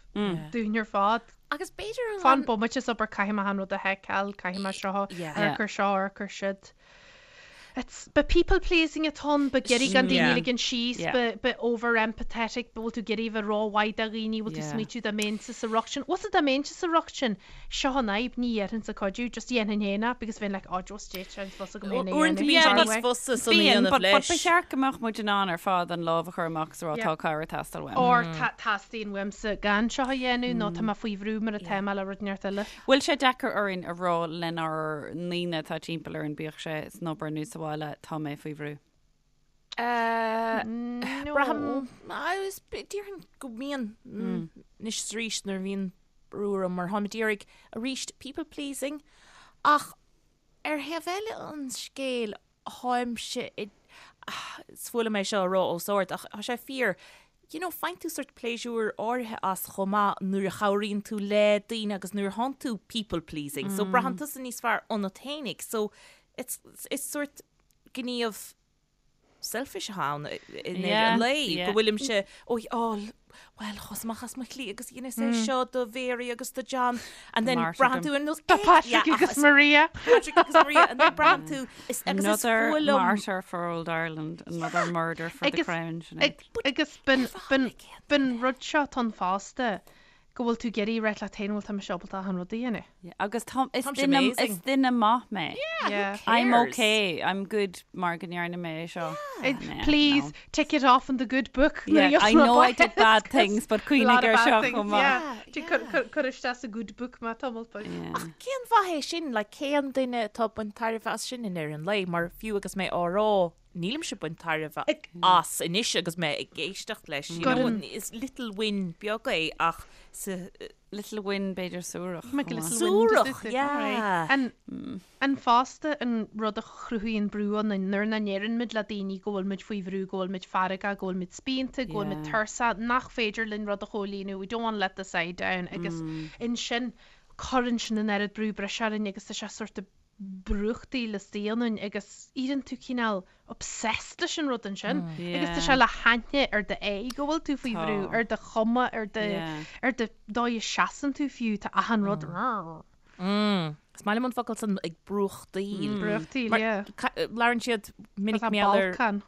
dúinn ar fad. Agus b'fhéidir an... Fan bomaite is obair caithfidh mé an rud a sheiceáil, caithfidh mé seo, Yeah. amharc ar seo, amharc ar siúd. It's, ba people pleasing atá ann, ba ag iarraidh gan daoine Yeah. a ligean síos, Yeah. ba, ba over empathetic, ba bhfuil tú ag iarraidh bheith rómhaith do dhaoine, bhfuil tú Yeah. smaoitiú dá mbeinnse sa riocht sin. Bhfuil dá mbeinnse sa riocht sin, Seo an fhadhb, ní dhéarfainnse cuidiú, just dhéanfainn féin é, because bheinn like, oh, just déit sé, fós agam féin é Uaireanta dhéanamh bíonn sé anyway. níos fusa san a Bíonn, dhéanamh but, but leis. ba cheart go mbeadh muid in ann ar fad an lámh a chur amach is a rá Yeah. tá cabhair ag teastáil uaim. Or tá teastaíonn uaimse gan seo a dhéanamh nó tá mé faoi bhrú mar atá mé le rud inteacht eile. Bhfuil sé deacair orainn a rá lenár ndaoine atá timpeall orainn, bíodh sé san obair nó sa bhaile, tá mé faoi bhrú? No. Braithim, agus déarfainn go mbíonn anois is arís nuair a bhíonn brú orm mar táim ag iarraidh arís people pleasing ach ar thaobh eile an scéil táimse i is fuath liom é seo a rá os ard ach tá sé fíor you know faigheann tú sort pléisiúr áirithe as chomh maith nuair a chabhraíonn tú le daoine agus nuair a thánn tú people pleasing so braitheann tusa níos fearr ionat fhéinig so it's it's sort gníomh selfish atá ann i ndeireadh an lae, go bhfuilimse, ó, bhuel, chuas amach as mo shlí agus dheineas é seo do Mhary agus do John, and then braitheann tú ar nós, Do Patrick agus Maria. Patrick agus Maria, and then braitheann tú, agus is Another fuath liom. martyr for old Ireland, another murder for the crown, Sinéad. Agus b'in rud seo atá ann fosta, go bhfuil tú ag iarraidh rá leat féin bhfuil tá mise ábalta achan rud a dhéanamh. Yeah, agus tá, is Tá mise duine, amazing. is duine maith mé. Yeah, Yeah. I'm cares? okay, I'm good mar go ndearna mé é seo. Yeah, Please no. tick it off in the good book. Yeah, I know I did bad things, but cuimhnigh ar seo chomh maith. Cuir isteach sa good book mé tamall beag. Yeah. Ach cén mhaith é sin, like, cén duine atá ag baint tairbhe as sin i ndeireadh an lae, mar fiú agus mé á rá, nílimse ag baint tairbhe as anois agus mé ag éisteacht leis. You know, is little win beag é ach sa Little win b'fhéidir suarach. Make a little Suarach, win. yeah. An an fosta an rud a chruthaíonn brú ionainn nuair nach ndeireann muid le daoine go bhfuil muid faoi bhrú, go bhfuil muid feargach, go bhfuil muid spíonta, go bhfuil muid tuirseach, nach féidir linn rud a chomhlíonadh, we don't want to let the side down agus ansin cuireann sin an oiread brú breise orainn agus tá sé sort of brúchtaíl istigh ionainn agus éiríonn tú cineál obsessed leis an rud ansin agus tá sé le haithne ar d'aghaidh go bhfuil tú faoi bhrú, ar do chuma, ar do ar do dóigh a seasann tú fiú, tá achan rud Is maith liom an focal san ag brúchtaíl. Brúchtaíl, yeah. Labhrann siad minic Tá mar gheall ar balcán.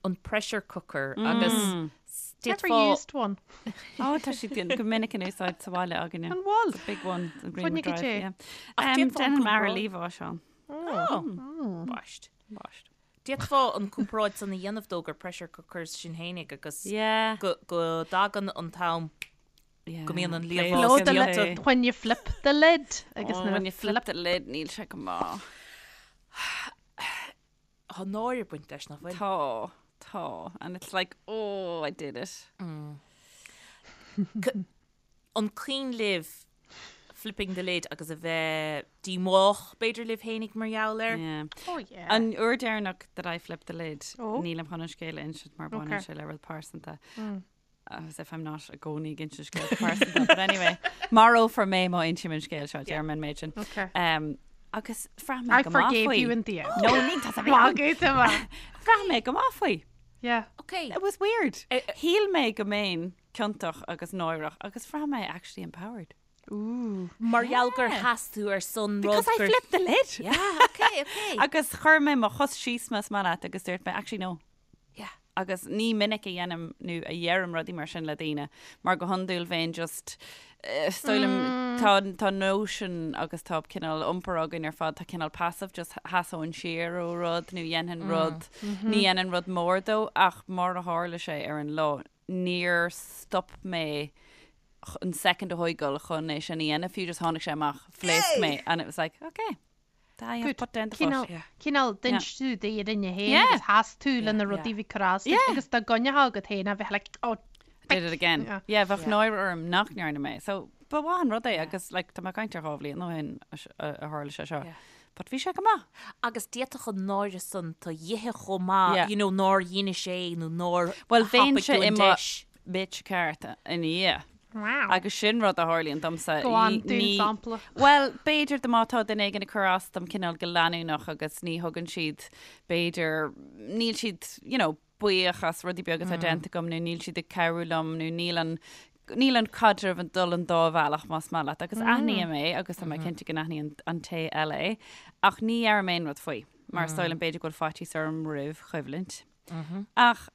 an pressure cooker agus Never d'fhéadfá used one. Ó tá siad go minic in úsáid sa bhaile againne. An bhfuil? It's a big one. The Green Fuinneog Drive, é. yeah. Ach d'fhéadfá an Déanann m'athair comparáid- liamhás, Seán. Oh, Baist. Baist. D'fhéadfá an comparáid san a dhéanamh dó gur pressure cookers sinn fhéinig agus Yeah. go go dtagann an t-am Yeah. go mbíonn an Play liamhás Blow the the lid. lid. When you flip the lid. Agus Oh, nuair a when you flip the lid, níl sé go maith. Tá náire ag baint leis nach bhfuil. Tá, tá. And it's like, oh, I did it. An cuimhin libh flipping the lid agus a bheith díomách b'fhéidir libh fhéinig mar gheall air? Yeah. Oh yeah. An uair deireanach that I flipped the lid, Oh. nílim chun an scéal a insint mar baineann Okay. sé le rud pearsanta. As if I'm not i gcónaí ag insint scéalta pearsanta, but anyway, marófar mé má insím an scéal seo, deirim an méid sin. Okay. Um, agus bhraith mé I go maith forgave faoi. you in the end. No, ní tá a bheith. Magadh tá mé. Bhraith mé go maith faoi. Yeah. Okay. It was weird. Eh, eh. Shíl mé go mbeinn ciontach agus náireach agus bhraith mé actually empowered. Ooh. Mar gheall gur sheas tú ar son rud Because I gur- flipped the lid. Yeah, okay, okay. Agus chuir mé mo chos síos más maith leat agus dúirt mé actually no. Yeah. Agus ní minic a dhéanaim nó a dheirim rudaí mar sin le daoine, mar go hiondúil bheinn just is dóigh liom tá tá notion agus tá cineál iompar againn ar fad, tá cineál passive, just sheasóinn siar ó rud nó dhéanfainn rud, ní dhéanfainn rud mór dó ach mar a tharla sé ar an lá, níor stop mé an second a thógáil chun é sin a dhéanamh fiú, just tháinig sé amach, phléasc mé and it was like, okay. I have put down the foot. Cineál d'inis tú d'fhírinne féin agus sheas tú le na rudaí a bhí ag cur as duit agus dá gcoinneofá agat féin a bheith like oh Did it again. Yeah, bheadh náire orm nach ndearna mé. So ba mhaith an rud é agus like tá mé ag caint ar 2 bhliain ó shin a tharla sé seo. But bhí sé go maith. Agus d'fhéadfadh an náire san tu dh'ithe chomh maith, you know, nár dheinis é nó nár Well bheinn thapaigh tú an deis. bitch ceart ina dhiaidh. Wow. Agus sin rud a tharlaíonn domsa. Go on, dúinn sampla. Bhuel, b'fhéidir do má tá duine éigin ag cur as dom cineál go leanúnach agus ní thugann siad, b'fhéidir, níl siad, you know, buíoch as rudaí beaga atá déanta agam nó níl siad ag cabhrú liom nó níl an níl an caidreamh ag dul an dá bhealach más maith leat agus aithním é agus tá mé cinnte go n-aithníonn an té eile é ach ní dheirim aon rud faoi mar is dóigh liom b'fhéidir go bhfuil faitíos orm roimh choimhlint. Ach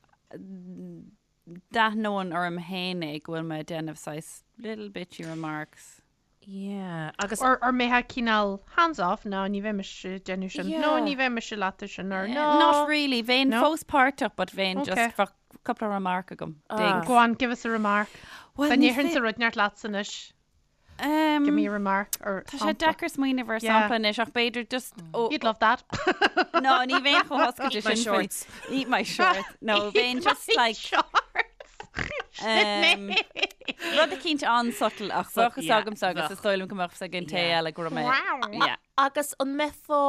d'aithneoinn orm féin é go bhfuil mé ag déanamh saghas little bitchy remarks. Yeah, agus. Or or mbeifeá cineál hands off, no, ní bheidh mise ag déanamh sin, no, ní bheidh mise leat ar sin, or no. Not really, bheinn No? fós páirteach but bheinn Okay. just bheadh cúpla remark agam. Dings. Go on, give us a remark. Well, Dá ní ndéarfainnse fé- rud inteacht leatsa anois. Um, Give me a remark or Tá sé deacair smaoineamh ar Yeah. sampla anois ach b'fhéidir just ó You'd love that. No, ní bheinn chomh hoscailte Eat my sin faoi- shorts. Eat my shorts. No, bheinn just like um, rud eicínt an-subtle ach bheadh fhios yeah, agamsa agus is dóigh liom go mbeadh fhios ag an té Yeah. eile go raibh mé. Yeah. Agus an mbeifeá,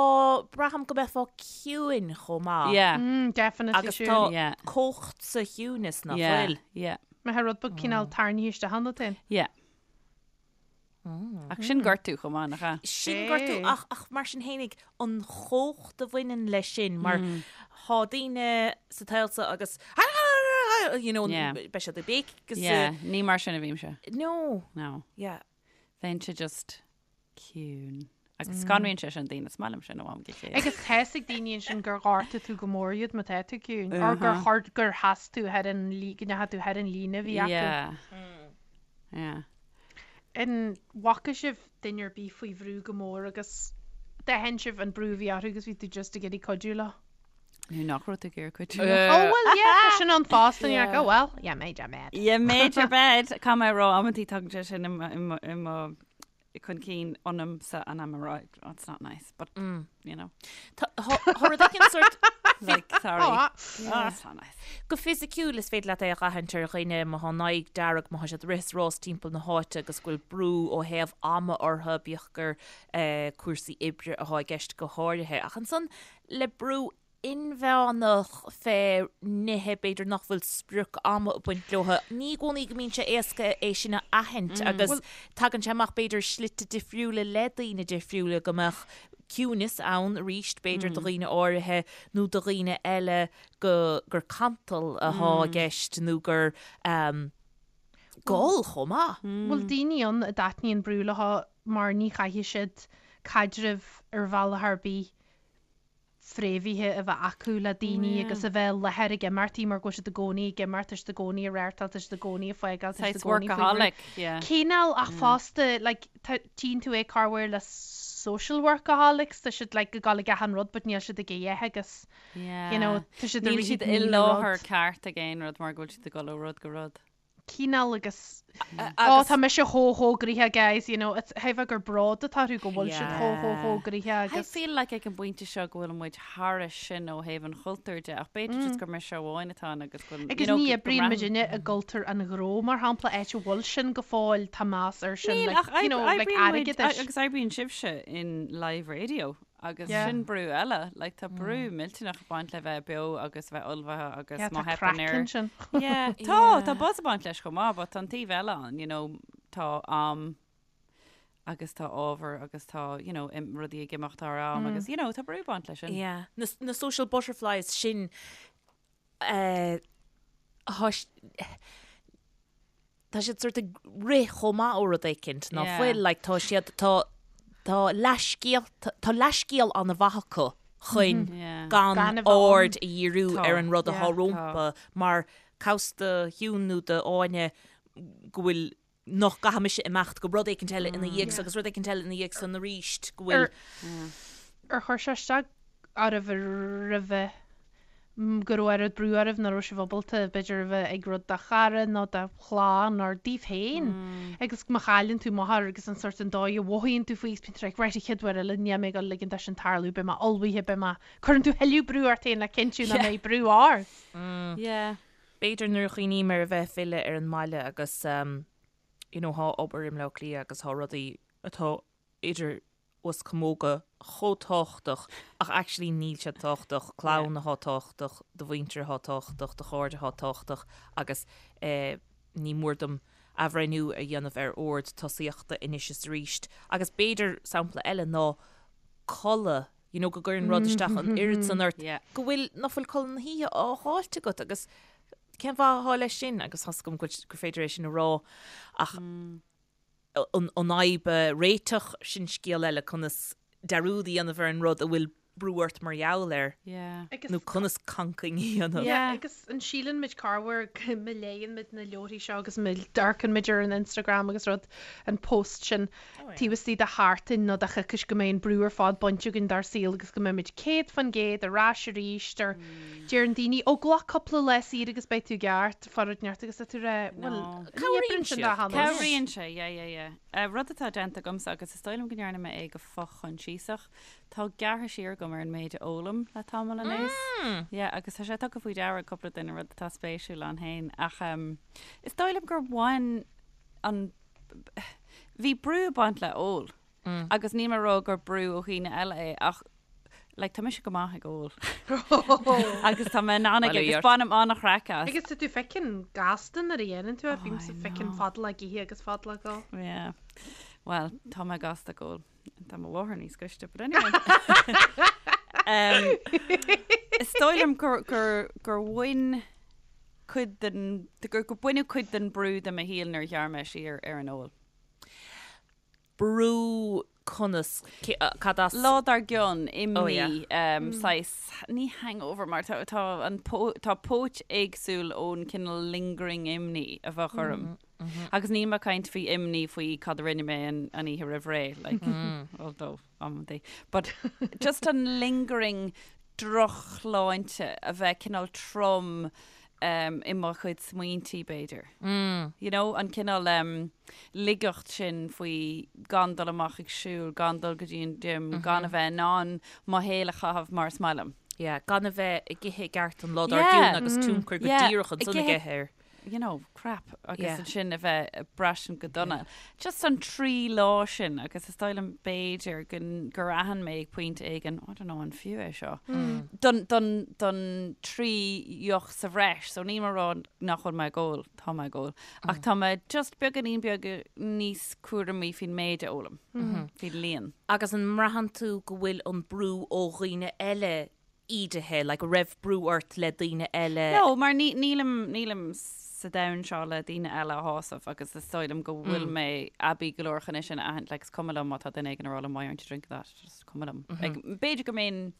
braithim go mbeifeá ciúin chomh maith. Yeah. Mm, definitely Agus sure. tá Yeah. cumhacht sa chiúnas nach Yeah. bhfuil. Yeah. Mbeadh rud beag cineál tarraingthe isteach ionat féin. Yeah. Ach sin gortú chomh maith, nach ea? Sin gortú ach, ach mar sin fhéinig an chumhacht a bhaineann leis sin mar thá daoine sa tsaol seo agus you know, Yeah. beidh siad ag béic agus Yeah, ní mar sin a bhímse. No. No. Yeah. Bheinnse just ciúin. Agus scanraíonn sé sin daoine, is maith liom sin ó am go chéile. Agus tá fhios ag daoine ansin gur ghortaigh tú go mór iad má tá tú ciúin, or gur chuir, gur sheas tú thar an lí, go ndeachaigh tú thar an líne a bhí acu. Yeah. Yeah. An bhfaca sibh duine ar bith faoi bhrú go mór agus d'aithin sibh an brú a bhí orthu agus bhí tú just ag iarraidh cuidiú leo? Nó nach raibh tú ag iarraidh cuidiú leo? Oh well yeah, tá sin ann fosta and you're like, oh well, yeah, made your bed. Yeah, made your bed. Caithfidh mé a rá amantaí tagann sé sin i mo, i mo, i mo chun cinn ionamsa and I'm right, oh, it's not nice, but, you know. Tá rud éigin sort Like, sorry. Oh, Oh, it's not nice. Go fisiciúil is féidir leat é a dh'aithint ar dhaoine má thá a n-aghaidh dearg, má thá siad ag rith is rás timpeall na háite agus go bhfuil brú ó thaobh ama orthu, bíodh gur cúrsaí oibre athá i gceist go háirithe. Ach ansan le brú inmheánach fé nithe b'fhéidir nach bhfuil sprioc ama ag baint leo, ní i gcónaí go mbíonn sé éasca é sin a aithint agus tagann sé amach b'fhéidir slite difriúla le daoine difriúla go mbeadh ciúineas ann arís b'fhéidir do dhaoine áirithe nó do dhaoine eile go gur cantal athá i gceist nó gur gol chomh maith. Bhfuil daoine ann a dtaitníonn brú leo mar ní chaithfidh siad caidreamh ar bhealach ar bith fréamhaithe a bheith acu le daoine agus a bheith i láthair ag imeachtaí mar go bhfuil siad i gcónaí ag imeacht, tá siad i gcónaí ag reáchtáil, tá siad i gcónaí ag fágáil, tá siad i Saghas gcónaí faoi bhrú. workaholic, yeah. Cineál ach fosta like tá, tchíonn tú é corruair le social workaholics, tá siad like ag dul ag achan rud but níl siad ag a dhath agus Yeah. you know tá siad ag Níl rith siad i 10,000 láthair rud. ceart ag aon rud mar go bhfuil siad ag dul ó rud go rud. cineál agus Ó tá mise chomh chomh gnoitheach guys, you know, it's thaobh gur bród atá orthu go bhfuil siad chomh chomh chomh gnoitheach I agus. feel like ag an bpointe seo go bhfuil muid thairis sin ó thaobh an chultúir de ach b'fhéidir just gur mise amháin atá ann agus go bhfuil, you Agus know, ní go oibríonn mbraitheann. muidinne i gcultúr an ghnó mar shampla, áit a bhfuil sin go fóill, tá meas air sin, Níl like, ach you know, like oibríonn muid airgeadais. agus oibríonn sibhse in live radio Agus Yeah. sin brú eile, like tá brú millteanach ag baint le bheith beo agus bheith ullmhaithe agus Yeah, má tá theipeann craic ar. ansin. Yeah, tá, tá buzz ag baint leis chomh maith, but tá an taobh eile ann, you know, tá am agus tá ábhar agus tá, you know, im, rudaí ag imeacht thar am agus, you know, tá brú ag baint leis sin. Yeah. Na, na social butterflies sin, eh, thá, tá siad sort ag rith chomh maith ó rud éicint ná Yeah. fuil, like tá siad, tá, tá leathscéal, tá leathscéal an-mhaith acu chun Yeah. gan Gan a bheith ann. aird a dhíriú Tá. ar an rud atá Yeah. rompu mar cá bhfios do Shiún nó do Áine go bhfuil nach gcaithfidh mise imeacht go rud éicint eile ina dhiaidh so agus rud éicint eile ina dhiaidh san arís go bhfuil Ar chuir sé isteach oraibh roimhe? Go raibh oiread brú oraibh nach raibh sibh ábalta b'fhéidir a bheith ag rud do chara nó do chlann nó daoibh féin agus má chailleann tú máthair agus an sort an dóigh a mhothaíonn tú faoi agus bíonn tú like right an chéad uair eile níl mé ag dul ligean dó sin tarlú beidh mé ullmhaithe beidh mé cuireann tú thuilleadh brú ort féin le cinntiú nach mbeidh brú ort. Yeah. B'fhéidir nuair a chuimhním ar a bheith ag filleadh ar an mbaile agus you know thá obair i mBleá Cliath agus thá rudaí atá idir us camóga chomh tábhachtach ach actually níl siad tábhachtach, clann athá tábhachtach, do mhuintir athá tábhachtach, do chairde athá tábhachtach agus ní mór dom athbhreithniú a dhéanamh ar ord tosaíochta anois is arís. Agus b'fhéidir sampla eile ná codladh, you know go gcuireann rud isteach an oiread san ort go bhfuil, nach bhfuil codladh na hoíche á fháilt agat agus cén mhaith athá leis sin agus tá's agam go gur féidir é sin a rá ach an fhadhb a réiteach, sin scéal eile, conas dearúd a dhéanamh ar an rud a bhfuil brú ort mar gheall air, nó conas cancaing a dhéanamh. Yeah, agus an síleann muid corruair go má léann muid na leabharthaí seo agus má amharcann muid ar an Instagram agus rud, an post sin taobh istigh de sheachtain nó de choicís go mbeidh an brú ar fad bainte againn dár saol agus go mbeidh muid 100% ar ais arís or deireann daoine, ó glac cúpla lá saor agus beidh tú i gceart. Fara neart agus tá tú rá, bhuel, Cabhraíonn ní oibríonn sin dá siad. Cabhraíonn sé, yeah, yeah, yeah. Rud atá déanta agamsa, agus is dóigh liom go ndearna mé é go fochoinsiasach, tá gearrtha siar agam ar an méid a ólaim le tamall anuas. Yeah, agus tá sé tugtha faoi deara ag cúpla duine, rud atá spéisiúil ann féin. Ach is dóigh liom gur bhain an, bhí brú ag baint le ól. Agus níl mé ag rá gur brú ó dhaoine eile é ach like tá mise go maith ag ól agus tá mé in ann aige agus bainim an-chraic as. Agus tá tú fucking gasta nuair a dhéanann tú é, bímse fucking fadalach ag ithe agus fadalach ag ól. Yeah. Well, tá mé gasta ag ól. Tá mo mháthair níos gaiste, but anyway. um, is dóigh liom gur, gur, gur bhain cuid den, gur, gur baineadh cuid den brú de mo shaol nuair a ghearr mé siar ar an ól. brú conas, cad as? Lá dár gcionn, imní, saghas, ní hangover mar tá, tá an, tá póit éagsúil ón cineál lingering imní a bheadh orm. Agus níl mé ag caint faoi imní faoi cad a rinne mé an oíche roimh ré, like, although amantaí. But just an lingering drochshláinte a bheith cineál trom i mo chuid smaointí, b'fhéidir. You know, an cineál ligeacht sin faoi gan dul amach ag siúl, gan dul go dtí an gym, gan a bheith in ann mo shaol a chaitheamh mar is maith liom. Yeah, gan a bheith ag ithe i gceart an lá dár gcionn agus tionchar go díreach ansan aige air. you know, crap agus yeah. ansin a bheith ag braistint go dona. Yeah. Just an trí lá sin agus is dóigh liom b'fhéidir gur aithin mé ag pointe éigin, I don't know an fiú é seo. Mm. Don, don, don trí dheoch sa bhreis, so níl mé ag rá nach bhfuil mé ag ól, tá mé ag ól. Mm. Ach tá mé just beagáinín beag níos cúramaí faoin méid a ólaim, mm -hmm. faoin líon. Agus an mbraitheann tú go bhfuil an brú ó dhaoine eile ídithe, like, an raibh brú ort le daoine eile? No, mar ní, nílim, nílim sa domhan seo le daoine eile a shásamh agus is dóigh liom go bhfuil mé aibí go leor chun é sin a aithint, like, is cuma liom má tá duine éigin ag rá liom why aren't you drinking that, just cuma liom. Like, b'fhéidir go mbeinn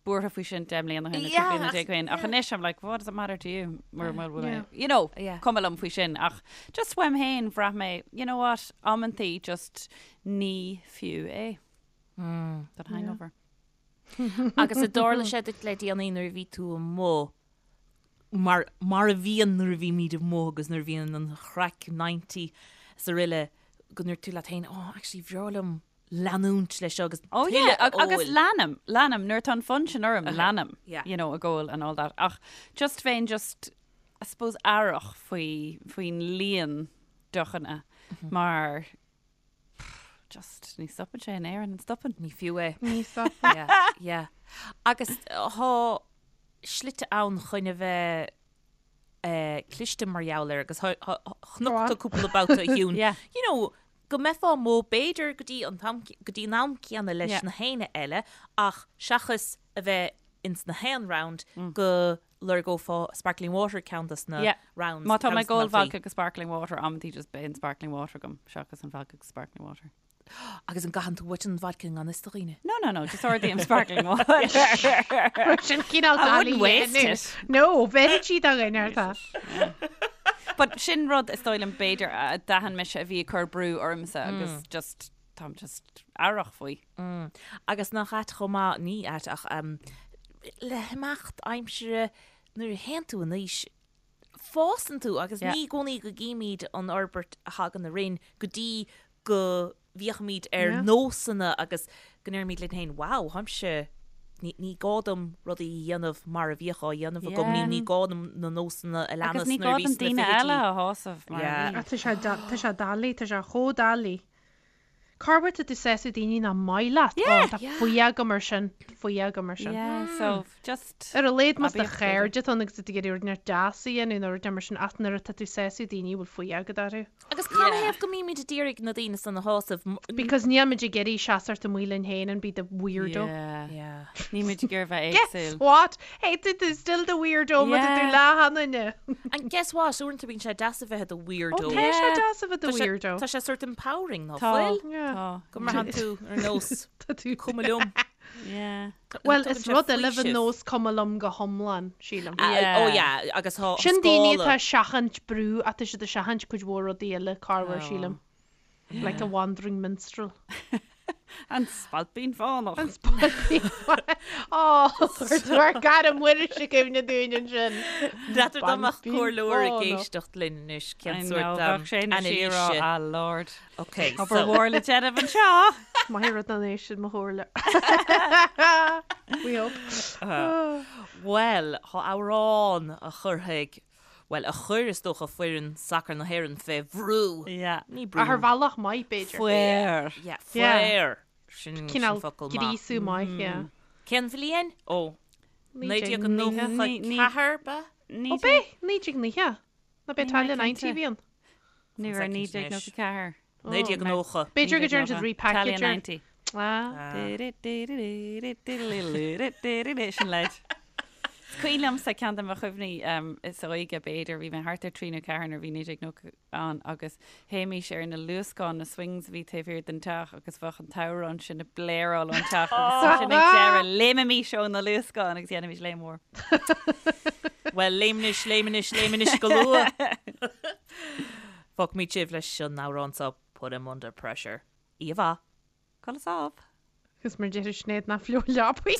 buartha faoi sin 10 mbliana ó shin nó 15 bliana ó shin, ach anois I'm like, what does it matter to you? Mura bhfuil mé, you know, cuma liom faoi sin, ach just uaim féin bhraith mé, you know what, amantaí just ní fiú é. That hangover. Agus an dtarla sé duit le déanaí nuair a bhí tú amuigh, mar, mar a bhíonn nuair a bhímid amuigh agus nuair a bhíonn an chraic 90 is araile, go ndúirt tú leat féin, oh, actually, bhreá liom leanúint leis seo agus Oh yeah, tuilleadh a agus óil. leanaim, leanaim, nuair atá an fonn sin orm, leanaim, Yeah. you know, ag ól and all that. Ach just bheinn just, I suppose, aireach faoi, faoin líon deochanna mar Just, ní stopann sé in Éirinn, an stopann? Ní fiú é. Ní stopann. Yeah, yeah. Agus thá slite ann chun a bheith eh, cliste mar gheall air agus chonac tú cúpla babhta a Shiún. Yeah. You know, go mbeifeá amuigh b'fhéidir go dtí an t-am, go dtí an am céanna leis Yeah. na héinne eile ach seachas a bheith ins na haon round go lorgófá sparkling water ceann dos na Yeah. rounds. Má tá ceann mé dos na ag ól babhtaí. vodka agus sparkling water, amantaí just bíonn sparkling water agam seachas an vodka agus sparkling water. Agus an gcaitheann tú uait an vodka i ngan fhios do dhaoine? No, no, no, just ordaím sparkling water. Sin cineál I wouldn't dalí waste it. No, bheir sí do dhuine ar tá. But sin rud is dóigh liom b'fhéidir a d'aithin mise a bhí ag cur brú ormsa agus just táim just aireach faoi. Agus nach ait chomh maith, ní ait ach. le himeacht aimsire nuair a théann tú in aois, fásann tú agus ní i gcónaí go gcímid an fhorbairt a thagann orainn go dtí go bhféachaimid ar nósanna agus go ndeirimid linn féin, wow, táimse, ní gá dom rudaí a dhéanamh mar a bhíodh á dhéanamh agam, nó ní gá dom na nósanna a Agus leanas ní nuair gá a bhí dom sna daoine fichidí. eile a shásamh mar a Yeah. bhí. Ach tá sé tá sé doiligh, tá sé chomh doiligh. Corruair tá tú ag sásamh daoine nach maith leat. Yeah. Ó, tá fuath agam air sin, fuath agam air sin. Yeah, so just Ar a laghad más do aibíocht b'fhéidir. chairde atá ann agus tú ag iarraidh rud inteacht deas a dhéanamh nó rud mar sin ach nuair atá tú ag sásamh daoine a bhfuil fuath agat orthu. Agus cad Yeah. ina thaobh go mbímid ag iarraidh na daoine san a shásamh? Because níl muid ag iarraidh seasamh amuigh linn féin and be the weirdo. Yeah. Yeah. Níl muid ag iarraidh bheith Guess éagsúil. what? Hey, tú tú still the weirdo má tá tú Yeah. le hanaine. And guess what? Uaireanta bíonn sé deas a bheith i do Ó, weirdo. tá sé Yeah. deas a bheith i do Tá sé- weirdo. Tá sé sort empowering ná Tá. fuil? Yeah. Tá. Go mbraitheann tú ar nós Tá tú. cuma liom. Yeah. Well, Tugann is sé rud eile bheith faoiseamh. nós cuma liom go hiomlán, sílim. Ah, Yeah. Oh yeah, agus tá Sin daoine scála. atá ag seachaint brú ach tá siad ag seachaint cuid mhór rudaí eile corruair, Oh. sílim. Like a wandering minstrel. An Spailpín Fánach. An Spailpín Fánach. Ó, chuir tú ár gcara Muiris i gcuimhne dúinn ansin. N'fheadar dá mbeadh Spailpín comhairleoir ag Fánach. éisteacht linn anois cén I sórt know, bheadh sé ina anailíse. siar ah Lord. Ok, Obair so mhór le déanamh anseo. Maith rud an é sin mo chomhairle. We hope. Bhuel, tá amhrán a chuirfidh, bhuel, a chuir is dócha foireann sacair na hÉireann fé bhrú. Yeah. Ní brú. Ach ar bhealach maith, b'fhéidir. Faor. Yeah, Yeah. faor. Sin sin Cineál focal maith. gríosú maith, yeah. Cén bhliain? Ó, 1990. 1994 ba? Ó b'é, 1990. Ná b'é Ní Italia mé 90 cinnte. a bhí ann. Ní raibh 1994. 1990. B'fhéidir go dtearn siad repackage Italia ar. 90. Ah. Sin leid. Is cuimhin liomsa ceann de mo chuimhní is óige b'fhéidir, bhí mé thart ar 3 nó 4 nuair a bhí 1990 ann agus théimís ar na luascáin, na swings a bhí taobh thiar den teach agus bheadh an t-amhrán sin ag bléaráil ón teach agus ansin ag deireadh léimimís ó na luascáin agus dhéanaimis léim mhór. Bhuel, léim anois, léim anois, léim anois go luath! Fágfaimid sibh leis an amhrán seo Put 'Em Under Pressure. Oíche mhaith. Codladh sámh. Agus mar deir Sinéad ná fliuch leapaí.